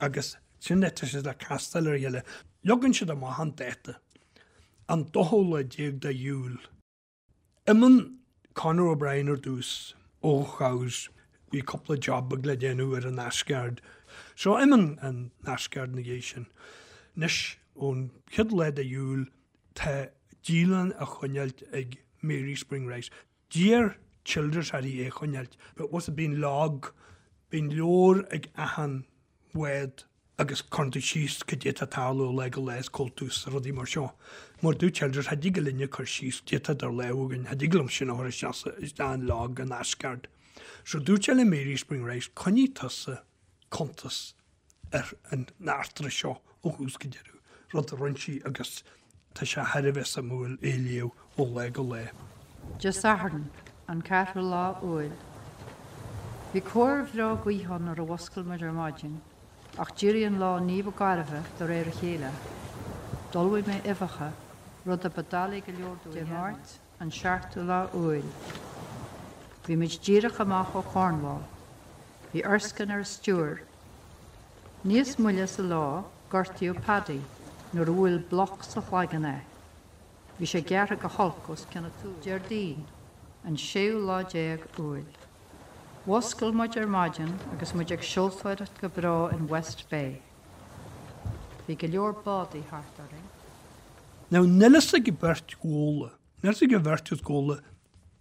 E: Agus sin áit atá siad le castáil ar a chéile. Leagann siad amach an dáta, an dóú lá déag de Iúil. Imíonn Conor O'Brien ar dtús ó Chowes, bhí cúpla job beag le déanamh ar an Asgard. So imíonn an Asgard ina dhiaidh sin. Anois, ón chéad lá de Iúil, Tá dialann á choinneáilt ag Mary Spring Rice. D'iarr Childers uirthi é a choinneáilt. But was it bíonn log, bíonn leabhar ag achan bhád. Agus cuireann tú síos cad é atá ag tarlú ó lá go lá is cá bhfuil tú is rudaí mar seo. Mar dúirt Childers, cha dtig linne cur síos cad é atá idir lámha againn, cha dtig liom sin a chur isteach isteach in log an Asgard. So dúirt sé le Mary Spring Rice, coinnigh tusa cuntas ar an eachtra seo ó thús go deireadh, rud a rinne sí agus tá sé thar a bheith suimiúil é a léamh ó lá go lá.
G: Dé Sathairn, an ceathrú lá Iúil. Bhí cóir bhreá gaoithe ann nuair a mhuscail muid ar maidin, ach d'éirigh an lá ní ba gairbhe de réir a chéile. D'ullmhaigh mé uibheacha, rud a ba doiligh go leor domh a dhéanamh. Dé Máirt, an seachtú lá Iúil. Bhí muid díreach amach ó Chornwall. Bhí Erskine ar an stiúir. Níos moille sa lá, gortaíodh Paddy nuair a bhuail bloc sa chloigeann é. Bhí sé gearrtha go holc os cionn a tsúil. Déardaoin, an séú lá déag Iúil. Mhuscail muid ar maidin agus muid ag seoltóireacht go breá in West Bay. Bhí go leor bádaí thart orainn.
E: Now níl fhios ag an bheirt Ghabhla, níl fhios ag an bheirt as Gabhla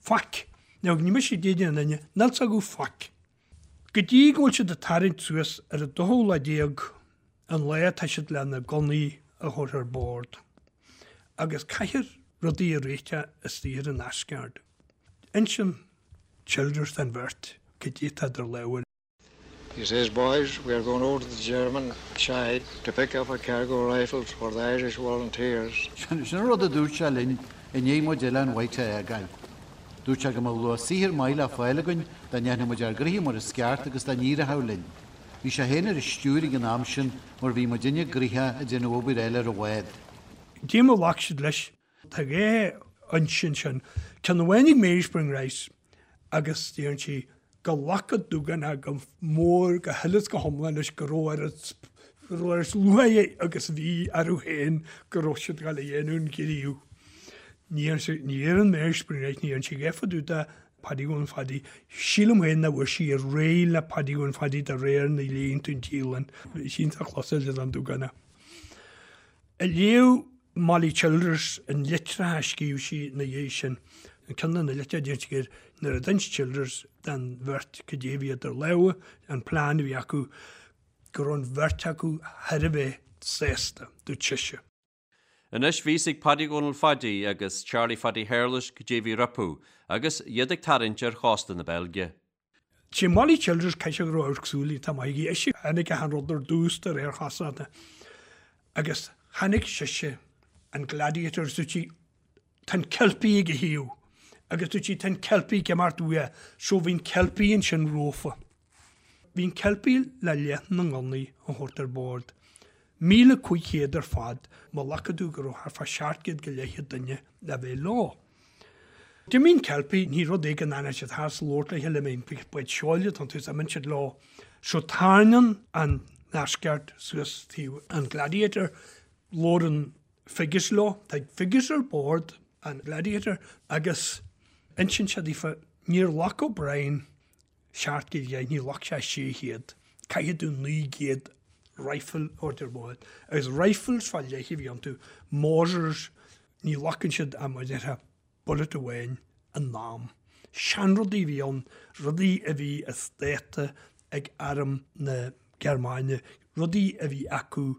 E: faic. Now ní mise ag déanamh an duine, níl fhios acu faic. Go dtí go bhfuil siad ag tarraingt suas ar an dóú lá déag, an lá atá siad le na gunnaí a thabhairt ar bord. Agus caithfear rudaí a réiteach istigh ar an Asgard. Insíonn Childers don bheirt cad é atá idir lámha.
B: He says, Boys, we are going over to the German side to pick up a cargo of rifles for the Irish Volunteers.
F: Sin an rud a dúirt sé linn i ndiaidh muid Oileán Wight a fhágáil. Dúirt sé go mbeadh luach saothair maith le fáil againn dá ndéanfadh muid ár gnoithe mar is ceart agus dá n-éireochadh linn. Bhí sé féin ar an stiúir ag an am sin mar bhí muidinne gnoitheach ag déanamh obair eile ar an bhád.
E: Cad é mar a ghlac siad leis. Tá dhá fhoinse ansin, ceann amháin ag Mary Spring Rice agus deireann sí go nglac an Dúgánach go mór, go huile is go hiomlán leis go raibh oiread go raibh oiread lúcháire agus a bhí orthu féin go raibh siad ag dul a dhéanamh an ghníomh. Ní deireann Mary Spring Rice, ní deireann sí a dhath fá dtaobh de Paddy Dhónaill Phaddy. Sílim féin nach bhfuair sí ar réidh le Paddy Dhónaill Phaddy de réir na léann tú an dialann. Bhí sí iontach closáilte don Dúgánach. Ag léamh Molly Childers an litreacha a scríobh sí ina dhiaidh sin, ceann de na litreacha a deir sí gur nuair a d'inis Childers don bheirt cad é a bhí idir lámha, an plean a bhí acu, go raibh an bheirt acu thar a bheith sásta, dúirt sise.
C: Anois bhí fhios ag Paddy Dhónaill Phaidí agus Charlie Phaddy Shéarlais cad é a bhí rompu agus iad ag tarraingt ar chósta na Beilge.
E: Sé Molly Childers caithfidh sé go raibh amharc súl iontach maith aici. Ise a chonaic achan rud ar dtús de réir chosúlachta. Agus chonaic sise an Gladiator agus dúirt sí, tá an Kelpie ag a thaobh. Agus dúirt sí, tá an Kelpie ag imeacht uaidh. So bhí an Kelpie ansin rófa. Bhí an Kelpie le leath na ngunnaí a thabhairt ar bord. 1,500 ar fad, má ghlacann tú go raibh thart fá 700 go leith duine le bheith leo. D'imigh an Kelpie, ní rud é go ndéanann siad thar 's labhairt le chéile, imíonn bád seoil atá iontu is imíonn siad leo. So tarraingíonn an Asgard suas taobh an Gladiator, labhrann Figgis leo, tá Figgis ar bord an Gladiator agus insíonn sé daofa, níor ghlac O'Brien 700 go leith, ní ghlac sé 600, caithfidh tú 900 rifle a thabhairt ar bord. Agus rifles fá leith a bhí iontu, Mausers, Ní ghlacann siad ach mar a déarfá bullet amháin in am. Seanrudaí a bhí ann, rudaí a bhí as dáta ag arm na Gearmáine, rudaí a bhí acu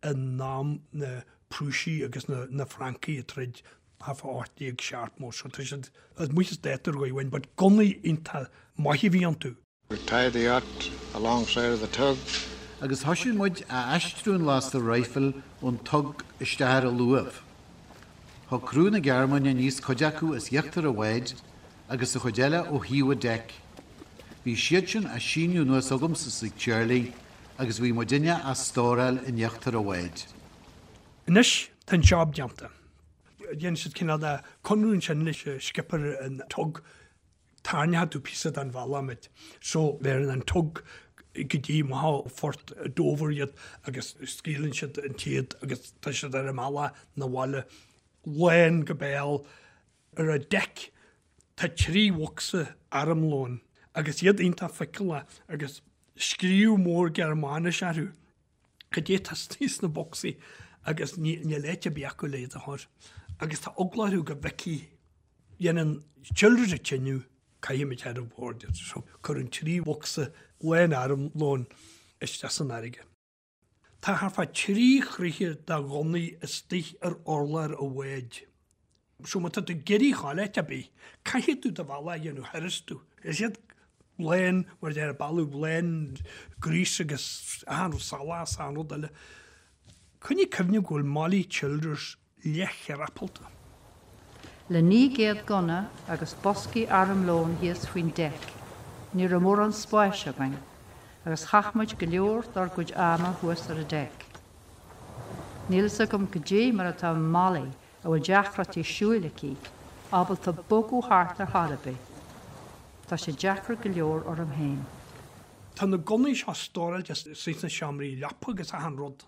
E: in am na Prúisigh agus na Francaigh ag troid thart fá 1870. So tá siad amuigh as dáta ar dhóigh amháin, but gunnaí iontach maith a bhí iontu.
B: We tied the yacht alongside of the tug.
F: Agus thoisigh muid a aistriú an lasta raidhfil ón tug isteach ar an luamh. Thug criú na Gearmáine aníos cuid acu as íochtar an bháid agus an chuid eile ó thaobh an deic. Bhí siad sin á síneadh anuas agamsa is ag Charlie agus bhí muidinne á stóráil in íochtar an bháid.
E: Anois tá an job déanta. Dhein siad cineál de conradh ansin leis an skipper an tug Tarraingeoidh tú píosa den bhealach muid. So bheireann an tug go dtí amach ó phort Dover iad agus scaoileann siad an téad agus tá siad ar a mbealach 'na bhaile lán go béal. Ar an deic tá 3 bhocsa armlóin agus iad iontach feiceálach agus scríobh mór Gearmáinis orthu. Cad é atá istigh sna bocsaí agus níl áit ar bith acu le iad a chur. Agus tá eagla orthu go bhfeicfidh Dhéanann Childers an cinneadh, caithfimid ar bord iad. So cuireann 3 bhocsa lán armlóin isteach san fharraige. Tá thart fá thrí throithe de ghunnaí istigh ar urlár an bháid. So má tá tú ag iarraidh a ghabháil áit ar bith, caithfidh tú do bhealach a dhéanamh tharastu. Is iad lán, mar a deir, bealach lán gríos agus achan rud salach is achan rud eile. Coinnigh cuimhne go bhfuil Molly Childers leathchrapalta.
G: Le 900 gunna agus boscaí armlóin thíos faoin deic, ní raibh mórán spáis againn, agus chaith muid go leor dár gcuid ama thuas ar an deic. Níl fhios agam goidé mar atá Molly, a bhfuil deacrachtaí siúil aici, ábalta bogadh thart ar chor ar bith. Tá sé deacair go leor orm féin.
E: Tá na gunnaí seo stóráilte sna seomraí leapa agus achan rud.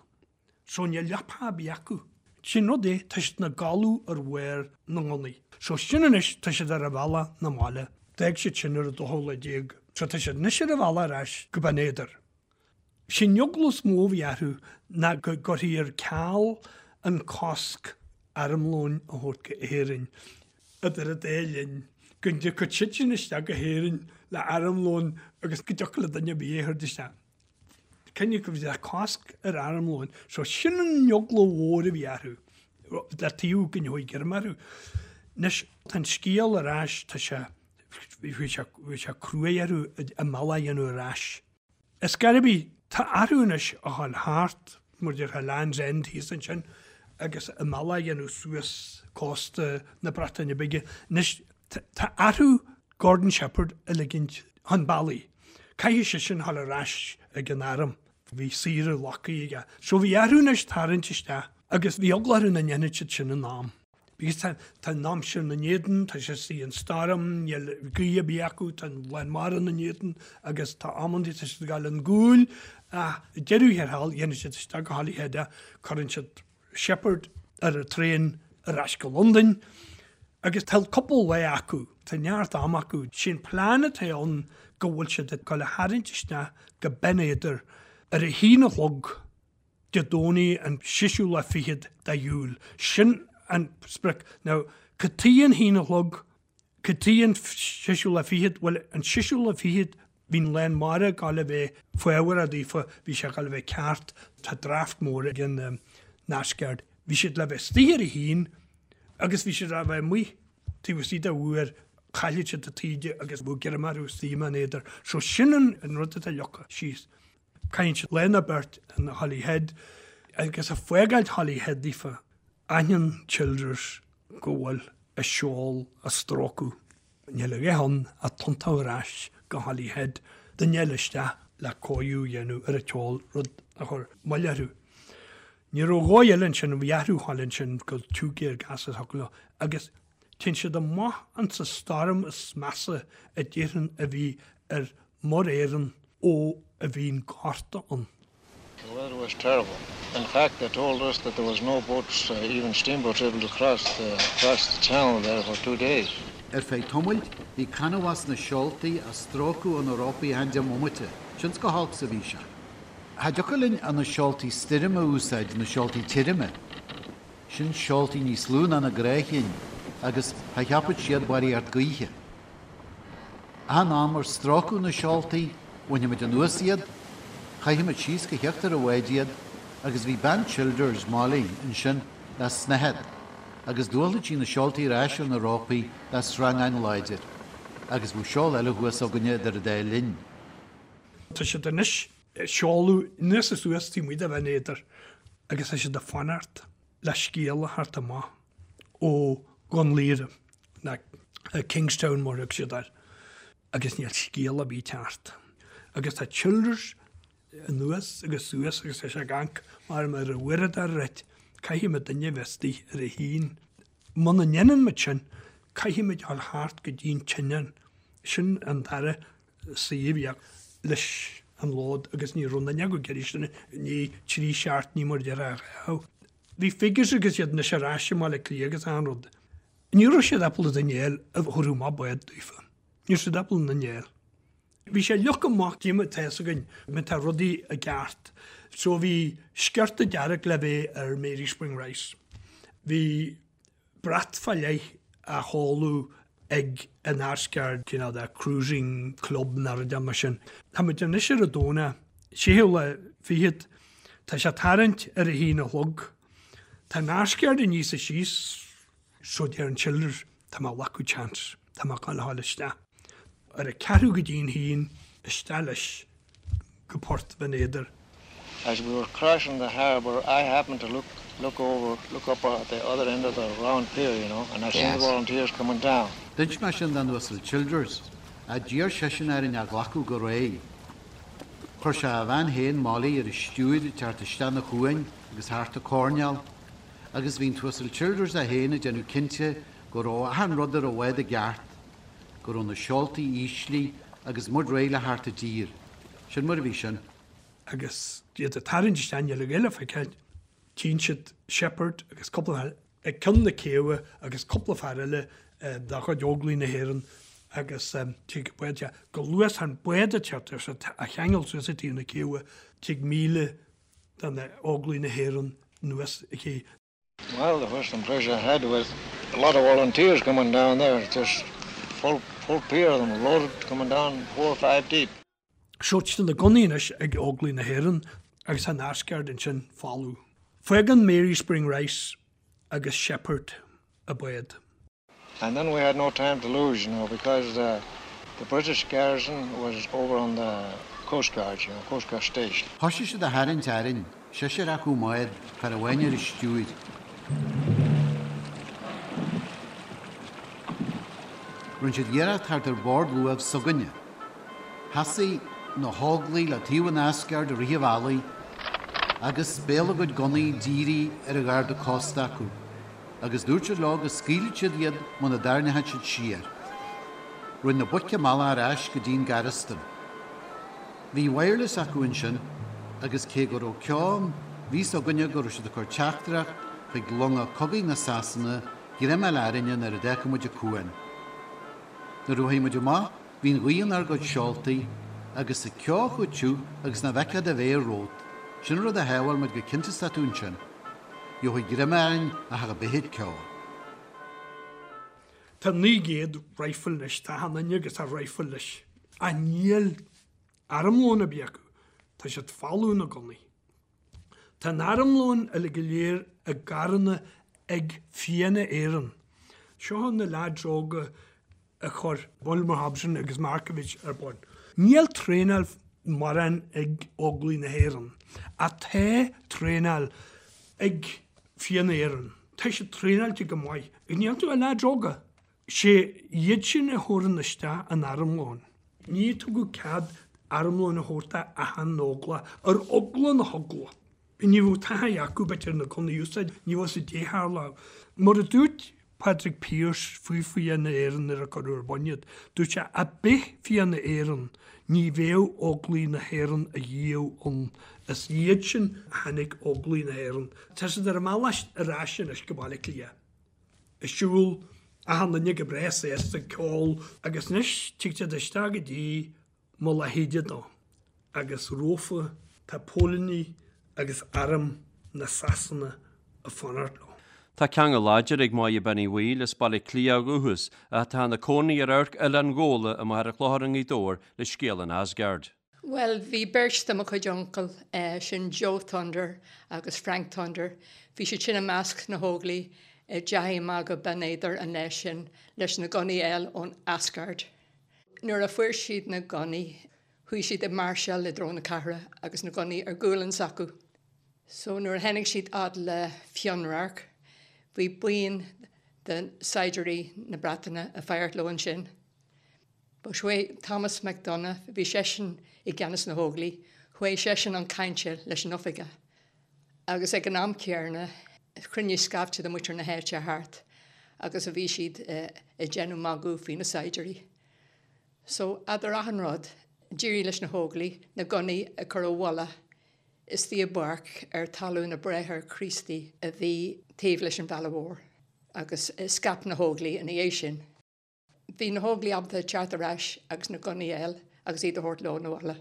E: So níl leapa ar bith acu. Sin rud é, tá siad ina gcodladh ar bharr na ngunnaí. So sin anois, tá siad ar a bhealach 'na mbaile. D'fhág siad sin ar an dóú lá déag. So tá siad anois ar a bhealach ar ais go Binn Éadair. Sé'n eagla is mó a bhí orthu ná go gcuirfí ar ceal an cosc armlóin a thabhairt go Éirinn idir an dá linn, go dtiocfadh siad sin isteach go hÉirinn le armlón agus go dtiocfadh le duine ar bith é a thabhairt isteach. Cinneadh go bhfuil cosc ar armlóin. So sin an eagla mhór a bhí orthu, le taobh go ndeachaigh greim orthu. Anois, tá an scéal ar ais, tá sé, bhí sé, bhí sé cruaidh orthu a mbealach a dhéanamh ar ais. Ar scor ar bith, tá orthu anois a ghabháil thart, mar a déarfá Land's End thíos ansin, agus a mbealach a dhéanamh suas cósta na Breataine Bige. Anois, Tá orthu Gordon Shepherd a ligint chun bealaigh. Caithfidh seisean a ghabháil ar ais ag an arm. Bhí saoire glactha aige. So bhí orthu anois tarraingt isteach agus bhí eagla orthu nach ndéanfadh siad sin in am. Because tá tá an aimsir ina n-éadan, tá sé istigh an stoirm, níl gaoth ar bith acu, tá an lán mara ina n-éadan agus tá amantaí tá siad ag gabháil ón gcúil ach ag deireadh thiar thall dhéanann siad isteach go Holyhead é, cuireann siad Shepherd ar an traein ar ais go Londain agus tá cúpla lá acu, tá neart ama acu. Sé'n plean atá ann go bhfuil siad ag dul a tharraingt isteach go Binn Éadair ar a haon a chlog Dé Domhnaigh an seisiú lá fichead de Iúil. Sin an sprioc. Now, cad chuige an haon a chlog? Cad chuige an seisiú lá fichead? Bhuel, an seisiú lá fichead, bhí an lán mara ag gabháil a bheith faobharach daofa, bhí sé ag gabháil a bheith ceart, tá draft mór ag an Asgard. Bhí siad le bheith istigh ar a haon agus bhí siad le bheith amuigh taobh istigh de uair, chaillfeadh siad an taoide agus bheadh greim orthu istigh i mBinn Éadair. So sin an rud atá leagtha síos. Caitheann siad lá nó beirt in Holyhead agus ag fágáilt Holyhead daofa, aithníonn Childers go bhfuil a seol á stróiceadh. Níl a dhath ann ach tiontú ar ais go Holyhead, duine eile isteach le cóiriú a dhéanamh ar an tseol, rud a chuir moill orthu. Ní raibh dhóigh eile ansin, bhí orthu a ghabháil ansin go Two-Gear Gas a thiocfadh leo agus téann siad amach insa stoirm is measa a déarfainn a bhí ar Muir Éireann ó a bhí an Gorta ann.
B: The weather was terrible. In fact, they told us that there was no boats, even steamboats, able to cross the, cross the channel there for two days.
F: Ar feadh tamaill, bhí canbhás na seoltaí á stróiceadh ó na rópaí achan deich mbomaite, cionn 's chomh holc 's a bhí sé. Cha dtiocfadh linn ach na seoltaí stoirme a úsáid, na seoltaí tirime. Sin seoltaí níos lú ná na gnáthchinn agus cha cheapfadh siad barraíocht gaoithe. Achan am ar stróiceadh na seoltaí, bhainfeadh muid anuas iad, chaithfeadh muid síos go híochtar an bháid iad agus bhí bean Childers, Molly, ansin le snáthaid agus d'fhuáilfeadh sí na seoltaí ar ais ar na rópaí le sreangán láidir agus bheadh seol eile thuas againne idir an dá linn.
E: Tá siad anois ag seoladh anuas is suas taobh amuigh de Bhinn Éadair agus tá siad ag fanacht le scéala a theacht amach ó Dhún Laoghaire, nó Kingstown mar a thug siad air, agus níl scéala ar bith ag teacht. Agus tá Childers anuas agus suas agus tá sé ag amharc mar mar a uaireadóir right, caithfidh muid duine a bheith istigh ar a haon. Muna ndéanann muid sin, caithfidh muid dul thart go dtí an tSionainn. Sin an dara suíomh leis an lód agus ní raibh aon duine acu ag iarraidh sin i ndiaidh trí seachtainí mar a déarfá a ghabh. Bhí figures agus iad anois ar ais i mBaile Átha Cliath agus achan rud. Ní raibh siad ábalta duine a fháil a thabharfadh amach bád daofa. Ní raibh siad ábalta duine a fháil. Bhí sé leagtha amach dúinn tá fhios againn má tá rudaí i gceart. So bhí sciorta dearg le bheith ar Mary Spring Rice. Bhí brat fá leith á sheoladh ag an Asgard, cineál de cruising club nó rud mar sin. Tá muid anois ar an Domhnach, séú lá fichead. Tá sé ag tarraingt ar a haon a chlog. Tá an Asgard aníos is síos so deir an Childers, tá mé ag glacadh chance, tá mé ag gabháil a ghabháil isteach. Ar a ceathrú go dtí'n haon, isteach leis go Port Bhinn Éadair.
B: As we were crossing the harbour I happened to look look over look up at the other end of the round pier, you know, and I seen the volunteers coming down.
F: D'inis mé sin don Uasal Childers, ach d'iarr seisean orainn é a ghlacadh go réidh. Chuir sé a bhean féin, Molly, ar an stiúir ag teacht isteach an chuain agus thart an choirnéal, agus bhí an tUasal Childers é féin ag déanamh cinnte go raibh achan rud ar an bhád i gceart, go raibh na seoltaí íslithe agus muid réidh le theacht i dtír. Sin mar a bhí sin.
E: Agus iad ag tarraingt isteach, níl a dhath le feiceáil, tchíonn siad Sheppard agus cúpla fear ag ceann na céibhe agus cúpla fear eile de chuid Óglaigh na hÉireann agus tig bád chomh luath is an bád ag teacht ar á cheangal suas ag taobh na céibhe, tig 1,000 de na Óglaigh na hÉireann anuas an ché.
B: Well, the first impression I had was a lot of volunteers coming down there, just full, full pier of them loaded coming down four or five deep.
E: So tá na gunnaí anois ag Óglaigh na hÉireann agus an Asgard ansin folamh. Fágann Mary Spring Rice agus Sheppard an bád.
B: And then we had no time to lose, you know, because the, the British garrison was over on the Coast Guard, you know, Coast Guard station.
F: Thoisigh siad a tharraingt orainn, seisear acu i mbád, fear amháin ar an stiúir. Rinne siad iarracht theacht ar bord luaimh s'againne. Sheasaigh na hÓglaigh le taobh an Asgard i rith an bhealaigh agus béal a gcuid gunnaí dírithe ar an gharda cósta acu, agus dúirt siad leo go scaoilfeadh siad iad muna dtarraingeodh siad siar. Rinne na boic a mbealach ar ais go dtí'n garastún. Bhí wireless acu ansin agus cé go raibh ceo ann, bhí 'fhios againne go raibh siad ag cur teachtaireacht chuig longa cogaidh na Sasana greim a fháil orainne nuair a d'fhágfadh muid an cuan. Nuair a chuaigh muid amach, bhí an ghaoth inár gcuid seoltaí, agus an ceo chomh tiubh agus nach bhfeicfeá do mhéar romhat. Sin an rud a shábháil muid go cinnte is tá tú ansin. Gheobhaí greim orainn ach a bith ceo.
E: Tá 900 rifle anois, tá achan duine agus a rifle leis. Ach níl armlón ar bith acu, tá siad folamh na gunnaí. Tá an armlón uilig go léir i gcarranna ag Fianna Éireann. Seo na leaids óga a chuir Bulmer Hobson agus Markievicz ar bun. Níl traenáil mórán ag Óglaigh na hÉireann, ach tá traenáil ag Fianna Éireann. Tá siad traenáilte go maith. Níl iontu ach leaids óga. Sé iad sin a thabharann isteach an armlón. Ní tugadh cead armlón a thabhairt d'achan óglach, ar eagla na heagla. Ní raibh taithí acu, b'fhéidir, na gunnaí a úsáid, ní raibh a fhios caidé a tharlódh. Mar a dúirt Padraig Pearse faoi Fianna Éireann nuair a cuireadh ar bun iad, dúirt sé, 'Á bith Fianna Éireann, ní bheadh Óglaigh na hÉireann a dhíobh ann. Is iad sin a tháinig Óglaigh na hÉireann. Tá siad ar a mbealach ar ais anois go Baile Átha Cliath. Ag siúl, achan duine go breá sásta ag ceol agus anois tig siad isteach go dtí Mullach Íde dó agus rompu tá póilíní agus arm na Sasana ag fanacht leo.
C: Tá ceangal láidir ag Máire Bean Uí Bhaoill as Baile Átha Cliath ó dhúchas ach atá ina cónaí ar Amharc Oileán Ghabhla i Machaire Chlochair i nGaoth Dobhair le scéal an Asgard.
H: Bhuel, bhí beirt de mo chuid uncail, sin Joe Thunder agus Frank Thunder, bhí siad sin i measc na hÓglaigh a dteachaigh amach go Binn Éadair an lá sin leis na gunnaí a fháil ón Asgard. Nuair a fuair siad na gunnaí, chuaigh siad ag máirseáil i dtreo na cathrach agus na gunnaí ar gualainn s'acu. So nuair a tháinig siad fhad le Fionnradharc, bhí buíon de saighdiúirí na Breataine ag faire leo ansin. But chuaigh Thomas McDonagh, bhí seisean i gceannas na hÓglaigh, chuaigh seisean chun cainte leis an oifigeach. Agus ag an am céarna, chruinnigh scaifte de mhuintir na háite thart agus a bhí siad ag déanamh magadh faoi na saighdiúirí. So, eadar achan rud, d'éirigh leis na hÓglaigh na gunnaí a chur i bhfolach istigh i bpáirc ar talamh na Bráithre Críostaí a bhí taobh leis an bhealach mhór. Agus scaip na hÓglaigh ina dhiaidh sin. Bhí na hÓglaigh ábalta teacht ar ais agus na gunnaí a fháil agus iad a thabhairt leo 'na bhaile.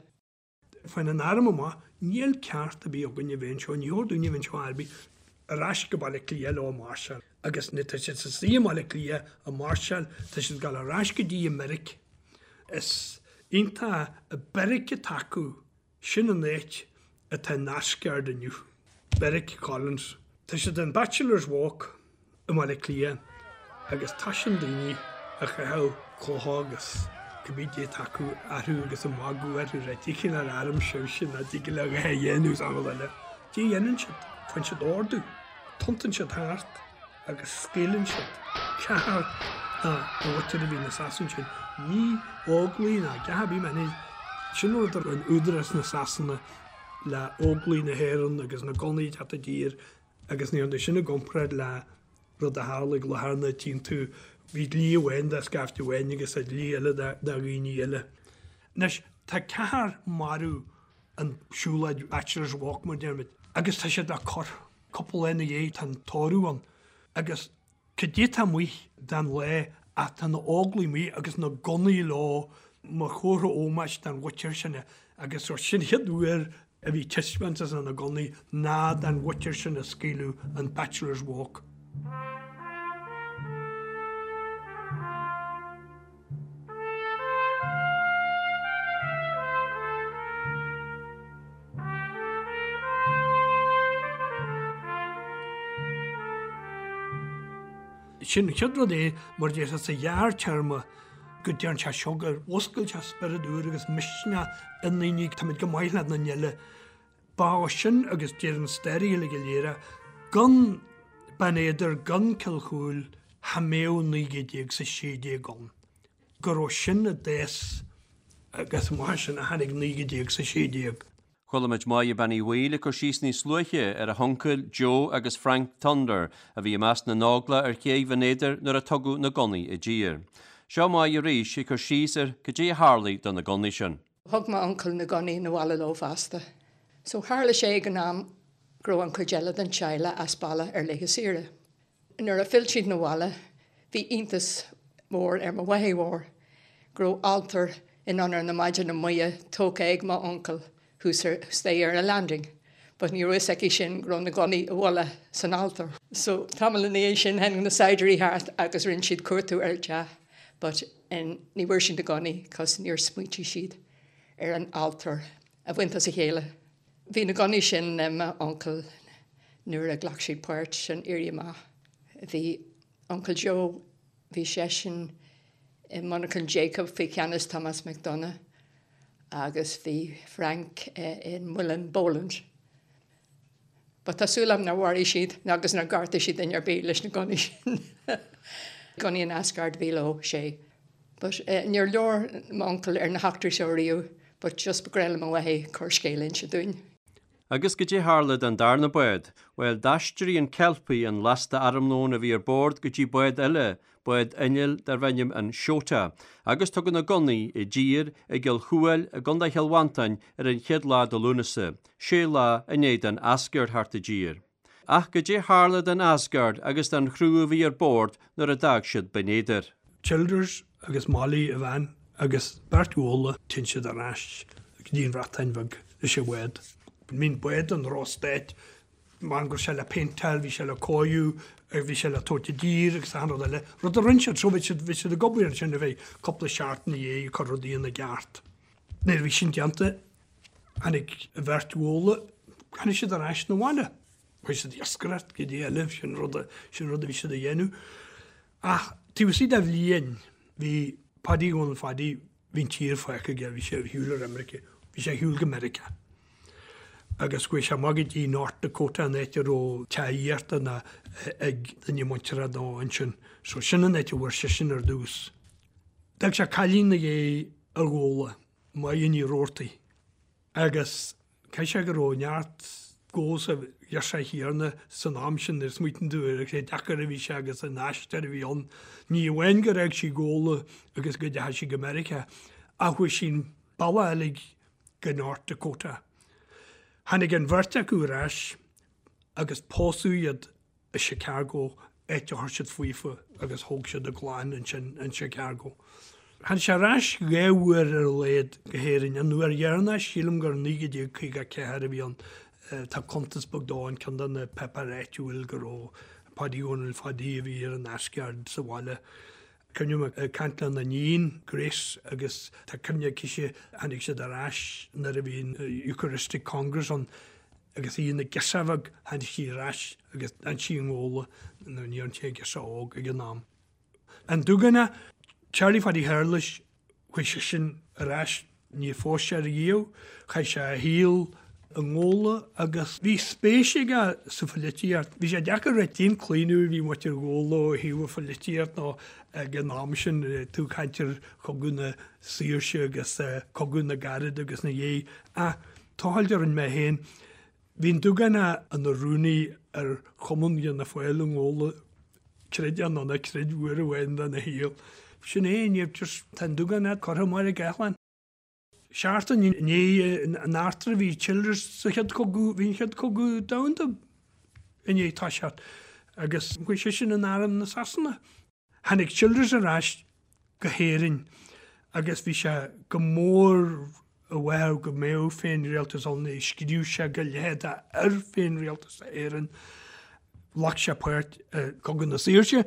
E: Faigheann an arm amach, níl ceart ar bith againn a bheith anseo, ní chóir dúinn a bheith anseo ar bith, ar ais go Baile Átha Cliath leo ag máirseáil. Agus nuair tá siad istigh i mBaile Átha Cliath ag máirseáil, tá siad ag dul ar ais go dtí an mbeairic. Is iontach an beairic atá acu, sin an áit. atá in Asgard inniu, Beairic Collins. Tá siad in Bachelor's Walk i mBaile Átha Cliath agus tá sin daoine a chaitheadh clocha agus cibé cad é atá acu orthu agus ag magadh orthu ag rá cad é cineál airm sibhse nach dtig libh a dhath a dhéanamh is an rud eile. Cad é a dhéanann siad? Faigheann siad ordú. Tiontaíonn siad thart agus scaoileann siad ceathrar de mhuintir a bhí na Sasanaigh sin. Ní Óglaigh ná a dhath ar bith mar sin rud a rinne údarás na Sasana le Óglaigh na hÉireann agus na gunnaí ag teacht i dtír agus ní hionadh sin i gcomparáid le rud a tharla ag Latharna tchíonn tú bhí dlí amháin do scaifte amháin agus dlí eile do dhaoine eile. Anois tá ceathrar marbh an siúlóid Bachelor's Walk mar deirimid agus tá siad á cur. Cúpla lá ina dhiaidh tá an tórramh ann agus cad é atá amuigh den lá ach tá na Óglaigh amuigh agus na gunnaí leo mar chomhartha ómóis don mhuintir sin agus sin an chéad uair a bhí taispeántas na ngunnaí ná don mhuintir sin a scaoileadh an Bachelor's Walk. Sin an chéad rud é, mar a déarfá sa ghearrtéarma, go dtearn sé seo gur mhúscail sé spiorad úr agus misneach i ndaoine, táimid chomh maith le daoine eile. Ba ó sin agus deir an staraí uilig go léir é, gan Beann Éadair, gan Cill Chúil, cha mbeadh 1916 ann. Gur ó sin a d'fhás agus amach as sin a tháinig 1916.
C: Chuala muid Máire Bean Uí Bhaoill ag cur síos níos luaithe ar a huncail Joe agus Frank Thunder a bhí i measc na nÓglach ar chéidh Bhinn Éadair nuair a tugadh na gunnaí i dtír. Seo Máire arís ag cur síos ar cad é a tharlaigh do na gunnaí sin.
H: Thug m'uncail na gunnaí 'na bhaile leo fosta. So tharla sé ag an am go raibh an chuid eile den teaghlach as baile ar laetha saoire. Nuair a phill siad 'na bhaile bhí iontas mór ar mo mháthair mhór go raibh altóir in onóir na Maighdine Muire tógtha ag m'uncail thuas ar staighre ar an landing but ní raibh fhios aici sin go raibh na gunnaí i bhfolach san altóir. So tamall ina dhiaidh sin tháinig na saighdiúirí thart agus rinne siad cuartú ar an teach but ní bhfuair siad na gunnaí cos níor smaointigh siad ar an altóir a bhaint as a chéile. Bhí na gunnaí sin le m'uncail nuair a ghlac siad páirt san Éirí Amach. Bhí Uncail Joe, bhí seisean i monarchan Jacob faoi cheannas Thomas McDonagh agus bhí Frank i Muileann Boland. But tá súil agam nár mharaigh siad agus nár ghortaigh siad duine ar bith leis na gunnaí sin. Gunnaí an Asgard a bhí leo, sé. But níor labhair m'uncail ar na heachtraí seo riamh but just ba ghnách le mo mháthair corrscéal a inse dúinn.
C: Agus goidé tharla don darna bád? Bhuel, d'aistrigh an Kelpie an lasta armlóin a bhí ar bord go dtí bád eile, bád innill darbh ainm an Shota, agus tugadh na gunnaí i dtír i gCill Chúil i gContae Chill Mhantáin ar an chéad lá de Lúnasa, sé lá i ndiaidh don Asgard theacht i dtír. Ach goidé tharla don Asgard agus don chriú a bhí ar bord nuair a d'fhág siad Binn Éadair?
E: Childers agus Molly, a bhean, agus beirt Ghabhla, téann siad ar ais go dtí an Bhreatain Bheag leis an bhád. I mean bád an drochstaid, mar go raibh sé le péinteáil, bhí sé le cóiriú, bhí sé le tabhairt i dtír agus achan rud eile. Rud a rinne siad, so bhí siad, bhí siad ag obair ansin ar feadh cúpla seachtain ina dhiaidh ag cur rudaí ina gceart. Nuair a bhí sin déanta, Tháinig an bheirt Ghabhla, tháinig siad ar ais 'na bhaile. Chuaigh siad ag iascaireacht, goidé eile, sin rud a, sin rud a bhí siad a dhéanamh. Ach taobh istigh de bhliain, bhí Paddy Dhónaill Phaddy, bhí an tír fágtha aige, bhí sé ar shiúl ar imirce, bhí sé ar shiúl go Meiriceá. Agus chuaigh sé amach go dtí North Dakota, an áit a raibh teach aíochta ná ag duine muinteartha dó ansin. So sin an áit a bhfuair seisean ar dtús. D'fhág sé cailín ina dhiaidh i nGabhla. Máire Ní Rabhartaigh, agus caithfidh sé go raibh neart dó sa ghirseach chéanna san am sin nuair a smaoitíonn tú ar cé deacair a bhí sé agus an aistear a bhí ann. Ní amháin gur fhág sí Gabhla agus go dteachaigh sí go Meiriceá ach chuaigh sí an bealach uilig go North Dakota. Tháinig an bheirt acu ar ais agus pósadh iad i Chicago, áit a chuir siad fúthu agus thóg siad a gclann ansin in Chicago. Tháinig sé ar ais dhá uair ar a laghad go hÉirinn. An uair dheireanach, sílim gur 1954 a bhí ann. Tá cuntas beag dó in ceann de na páipéir áitiúil go raibh Páidí Dhónaill Phadaí a bhí ar an Asgard sa bhaile. Cuimhním ag caint lena iníon, Grace, agus tá cuimhne aicise, tháinig siad ar ais nuair a bhí an Eucharistic Congress ann agus í ina girseach bheag, tháinig sí ar ais agus d'fhan sí i nGabhla, nó ní raibh sí ach girseach óg ag an am. An Dúgánach, Charlie Phaidí Shéarlais, Chuaigh seisean ar ais, níor phós sé riamh, chaith sé a shaol i nGabhla agus bhí spéis aige sa phoilitíocht. Bhí sé deacair a rá cén claonadh a bhí muintir Ghabhla ó thaobh an phoilitíocht nó ag an am sin, tú ag caint ar Chogadh na Saoirse agus Cogadh na gCarad agus ina dhiaidh. Ach tochailt a rinne mé féin, bhí an Dúgánach ina rúnaí ar Chumann Fhianna Fáil i nGabhla Creid é nó ná creid uair amháin dena shaol. Sin é, níor just, tá an Dúgánach curtha i mBaile Gathlán. Seachtain i ndiaidh an eachtra bhí Childers sa chéad chogadh, bhí an chéad chogadh domhanda i ndiaidh toiseacht agus chuaigh seisean in arm na Sasana. Tháinig Childers ar ais go hÉirinn agus bhí sé go mór i bhfabhar go mbeadh féinrialtas ann, scríobh sé go leitheadach ar féinrialtas Éireann, ghlac sé páirt i gCogadh na Saoirse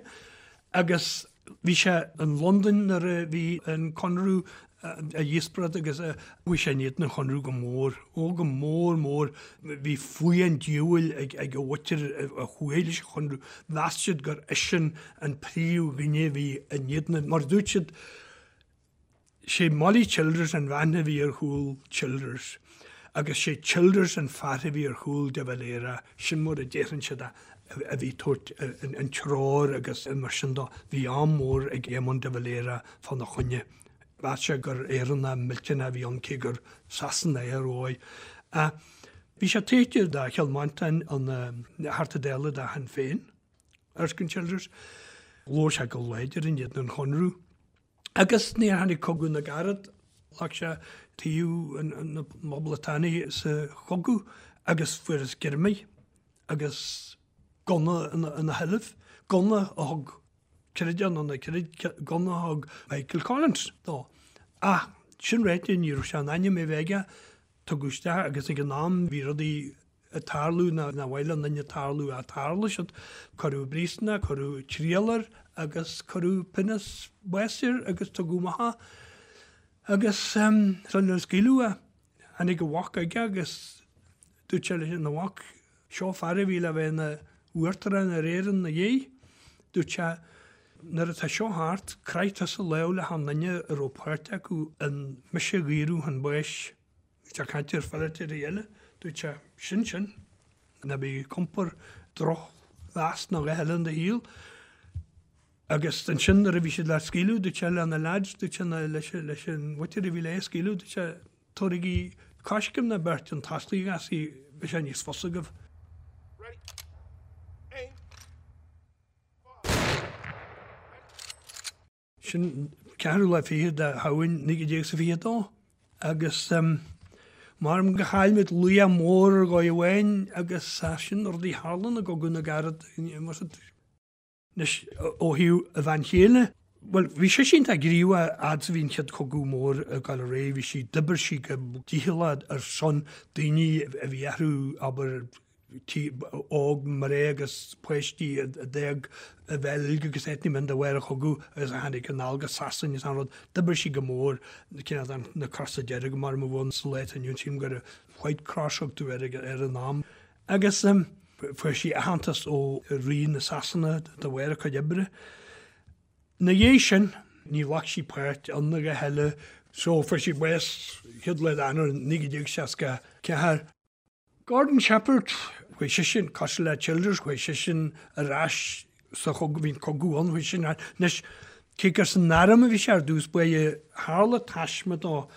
E: agus bhí sé in Londain nuair a bhí an Conradh á dhíospóireacht agus chuaigh sé in éadan an Chonradh go mór, ó go mór mór. Bhí fuath an diabhail ag a mhuintir a chuaigh leis an Chonradh. Mheas siad gur eisean an príomhdhuine a bhí in éadan, mar a dúirt siad, sé Molly Childers an bhean a bhí ar chúl Childers agus sé Childers an fear a bhí ar chúl de Valera, sin mar a déarfainn siad a bhí ag tabhairt an treoir agus mar sin dó. Bhí ádh mór ag Éamon de Valera fána choinne. Mheas sé gur Éireannach millteanach a bhí ann cé gur Sasanach é ar dhóigh. Ach bhí sé taobh de Chill Mhantáin ina Theachta Dála de Shinn Féin, Erskine Childers. Labhair sé go láidir in éadan an Chonradh. Agus nuair a tháinig Cogadh na gCarad, ghlac sé taobh na bPoblachtánaigh sa chogadh agus fuarthas greamaithe agus gunna ina sheilbh, gunna a thug Creid é nó ná creid, gunna a thug Michael Collins dó. Ach sin ráite, ní raibh sé in ainm é bheith aige, tugadh isteach agus ag an am bhí rudaí ag tarlú nár mhaith le aon duine tarlú ach tharla siad. Cuireadh i bpríosún é, cuireadh triail air agus cuireadh pionós báis air agus tugadh amach é. Agus sular scaoileadh é, tháinig a mhac chuige agus dúirt sé leis an mhac, Seo fear a bhí le bheith ina uachtarán ar Éirinn ina dhiaidh. Dúirt sé, Nuair atá seo thart, croith tusa lámh le haon duine a raibh páirt acu in mise a dhaoradh chun báis. Bhí sé ag caint ar pholaiteoirí eile. Dúirt sé, Sin sin. Ná bí ag iompar drochmheas ná a dhath eile in do shaol. Agus ansin nuair a bhí siad le scaoileadh, dúirt sé le na leaids, dúirt sé leis an mhuintir a bhí le é a scaoileadh, dúirt sé, Tabhraigí coiscéim nó beirt chun tosaigh agus beidh sé níos fusa agaibh. Ready. Aim. Fire. Ready. Sin ceathrú lá fichead de Shamhain 1922 agus maram gur chaill muid laoch mór ar dhóigh amháin agus sin rudaí a tharlann i gCogadh na gCarad. Anois, ó thaobh a bhean chéile, bhuel, bhí sise iontach gníomhach fhad is a bhí an Chéad Chogadh Mór ag dul ar aghaidh, bhí sí, d'oibir sí go dícheallach ar son daoine a bhí orthu, abair, óg, mná agus páistí a d'fhág an Bheilg agus áiteanna mar sin de bharr an chogaidh agus a tháinig anall go Sasain agus an rud. D'oibir sí go mór, cineál na Crosa Dearga mar a bhí sa lá atá inniu ann, sílim gur White Cross a thugtaí air ag an am. Agus fuair sí aitheantas ó Rí na Sasana de bharr a cuid oibre. Ina dhiaidh sin, ní ghlac sí páirt ann a dhath eile, so fuair sí bás chéad lá d'Eanáir 1964. Gordon Shepherd, chuaigh seisean, cosúil le Childers, chuaigh seisean ar ais sa chogadh, bhí an cogadh ann, chuaigh seisean ar ais. Anois, cé gur san arm a bhí sé ar dtús báire, tharla taisme dó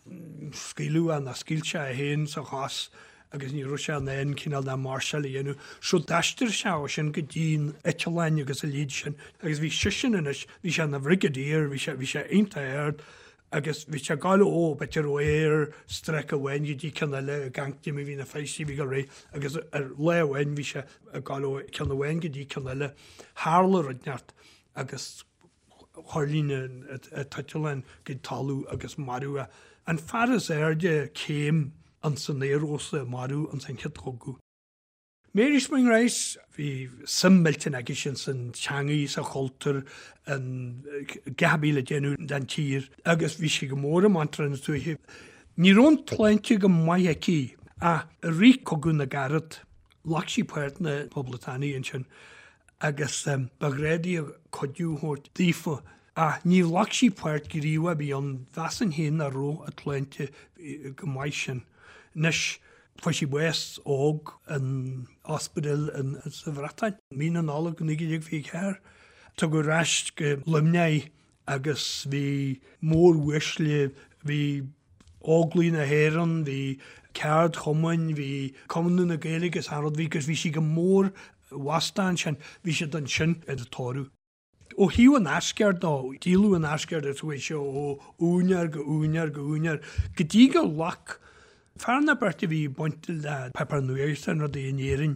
E: scaoileadh é nó scaoil sé é féin sa chos agus ní raibh sé in ann cineál de máirseáil a dhéanamh. So d'aistrigh sé ó sin go dtí na eitleáin agus a leithéid sin agus bhí seisean anois, bhí sé ina bhrigadier, bhí sé, bhí sé iontach ard agus bhí sé ag gabháil ó, b'fhéidir ó air strike amháin go dtí ceann eile ag amharc cad é mar bhí na feistí a bhí ag gabháil ar aghaidh agus ar lá amháin bhí sé ag gabháil ó ceann amháin go dtí ceann eile. Tharla rud inteacht agus thuirling an t-eitleán go talamh agus maraíodh é. An fear is airde céim ins an aerfhórsa a maraíodh ins an Chéad Chogadh. Mary Spring Rice, bhí suim millteanach aici sin san teangaidh, sa chultúr, in gach a bhí le déanamh don tír agus bhí sí go mór i mBantraí na Tuaithe. Ní raibh an tsláinte go maith aici ach i rith Cogadh na gCarad, ghlac sí páirt na Poblachtánaigh ansin agus ba ghnách di cuidiú a thabhairt daofa ach ní ghlac sí páirt ghníomhach ar bith ann, mheasfainn féin nach raibh a tsláinte go maith sin. Anois, fuair sí bás óg in ospidéal sa Bhreatain, mí na Nollag 1924. Tugadh ar ais go Luimneach í agus bhí móruaisle, bhí Óglaigh na hÉireann, bhí ceardchumainn, bhí Conradh na Gaeilge agus achan rud, bhí agus bhí sí go mór mheasta ansin, bhí siad ansin ina tórramh. Ó thaobh an Asgard dó, díoladh an Asgard agus chuaigh sé ó úinéir go úinéir go úinéir go dtí gur ghlac fear nó beirt a bhí bainte le páipéar nuachta and rudaí in Éirinn,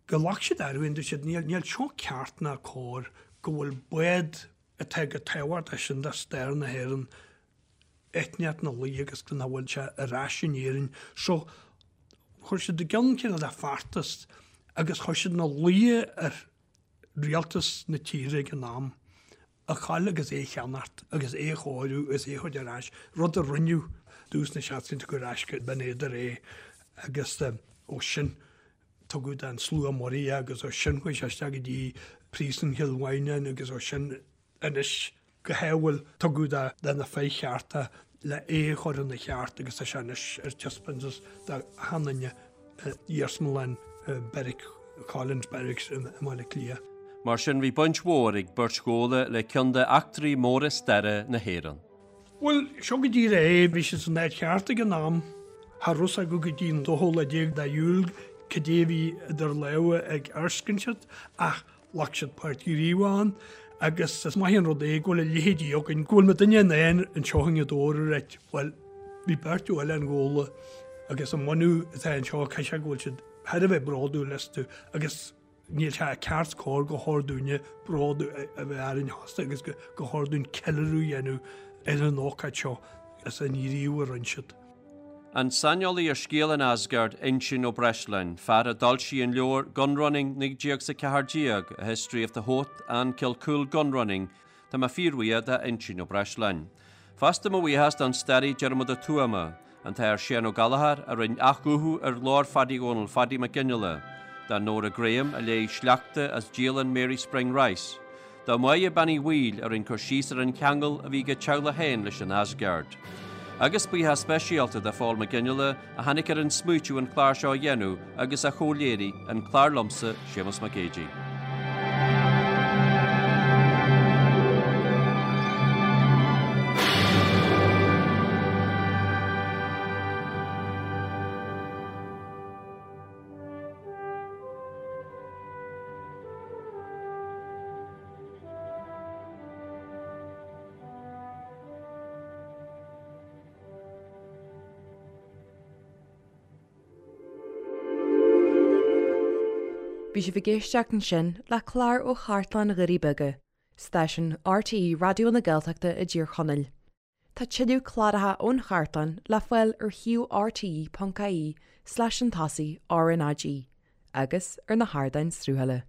E: go ghlac siad air and dúirt siad níl seo ceart ná cóir go bhfuil bád atá chomh tábhachtach sin do stair na hÉireann, eitneacht na luí agus go nach bhfuil sé ar ais in Éirinn. So, chuir siad i gcionn cineál de feachtas agus chuir siad ina luí ar rialtas na tíre ag an am a ghabháil agus é a cheannacht agus é a chóiriú agus é a thabhairt ar ais, rud a rinneadh dtús na seascaidí tugadh ar ais go Binn Éadair é agus ó sin tugadh don Slua Muirí é agus ó sin chuaigh sé isteach go dtí Príosún Chill Mhaighneáin agus ó sin anois go hádhúil tugadh do na fir chearta le é a chur ina cheart agus tá sé anois ar taispeántas d'achan duine i Iarsmalann Beairic Collins Barracks i mBaile Átha Cliath.
C: Mar sin bhí baint mhór ag beirt Ghabhla le ceann de eachtraí móra staire na hÉireann.
E: Bhuel, seo go díreach é, bhí siad san áit cheart ag an am. Cha raibh fhios acu go dtí an dóú lá déag de Iúil cad é a bhí idir lámha ag Erskine siad, ach ghlac siad páirt ghníomhach ann agus is maith an rud é go bhfuil a leithéidí againn, go bhfuil muidinne in ann anseo i nGaoth Dobhair a ráit, bhuel, bhí beirt ó Oileán Ghabhla agus an bunadh atá anseo, caithfidh sé go bhfuil siad thar a bheith bródúil astu agus Níl sé ceart is cóir gur chóir dúinne bród a bheith orainn fosta agus gur chóir dúinn ceiliúradh a dhéanamh ar an ócáid seo is an gníomh a rinne siad.
C: An saineolaí ar scéal an Asgard, Uinseann Ó Breisleáin, fear a d'fhoilsigh an leabhar Gunrunning 1914, A History of the Howth and Kilcoole Gunrunning, Tá mé fíorbhuíoch d'Uinseann Ó Breisleáin. Fosta mo bhuíochas don staraí Diarmuid Ó Tuama, an tAthair Séan Ó Gallchóir a rinne athghuthú ar ghlór Phadaí Dhónaill Phadaí Mac Fhionnghaile, do Nóra Graham a léigh sleachta as dialann Mary Spring Rice, do Mháire Bean Uí Bhaoill a rinne cur síos ar an cheangal a bhí ag a teaghlach féin leis an Asgard. Agus buíochas speisialta do Phól Mac Fhionnghaile a tháinig ar an smaoitiú an clár seo a dhéanamh agus a chomhléirigh an clár liomsa, Séamus Mac Géidigh.
A: Bhí sibh ag éisteacht ansin le clár ó Chartlann Dhoirí Beaga, stáisiún RTÉ Raidió na Gaeltachta i dTír Chonaill. Tá tuilleadh cláracha ón chartlann le fáil ar shuíomh rte.ie slash an tosaigh RnaG agus ar na hardáin sruthála.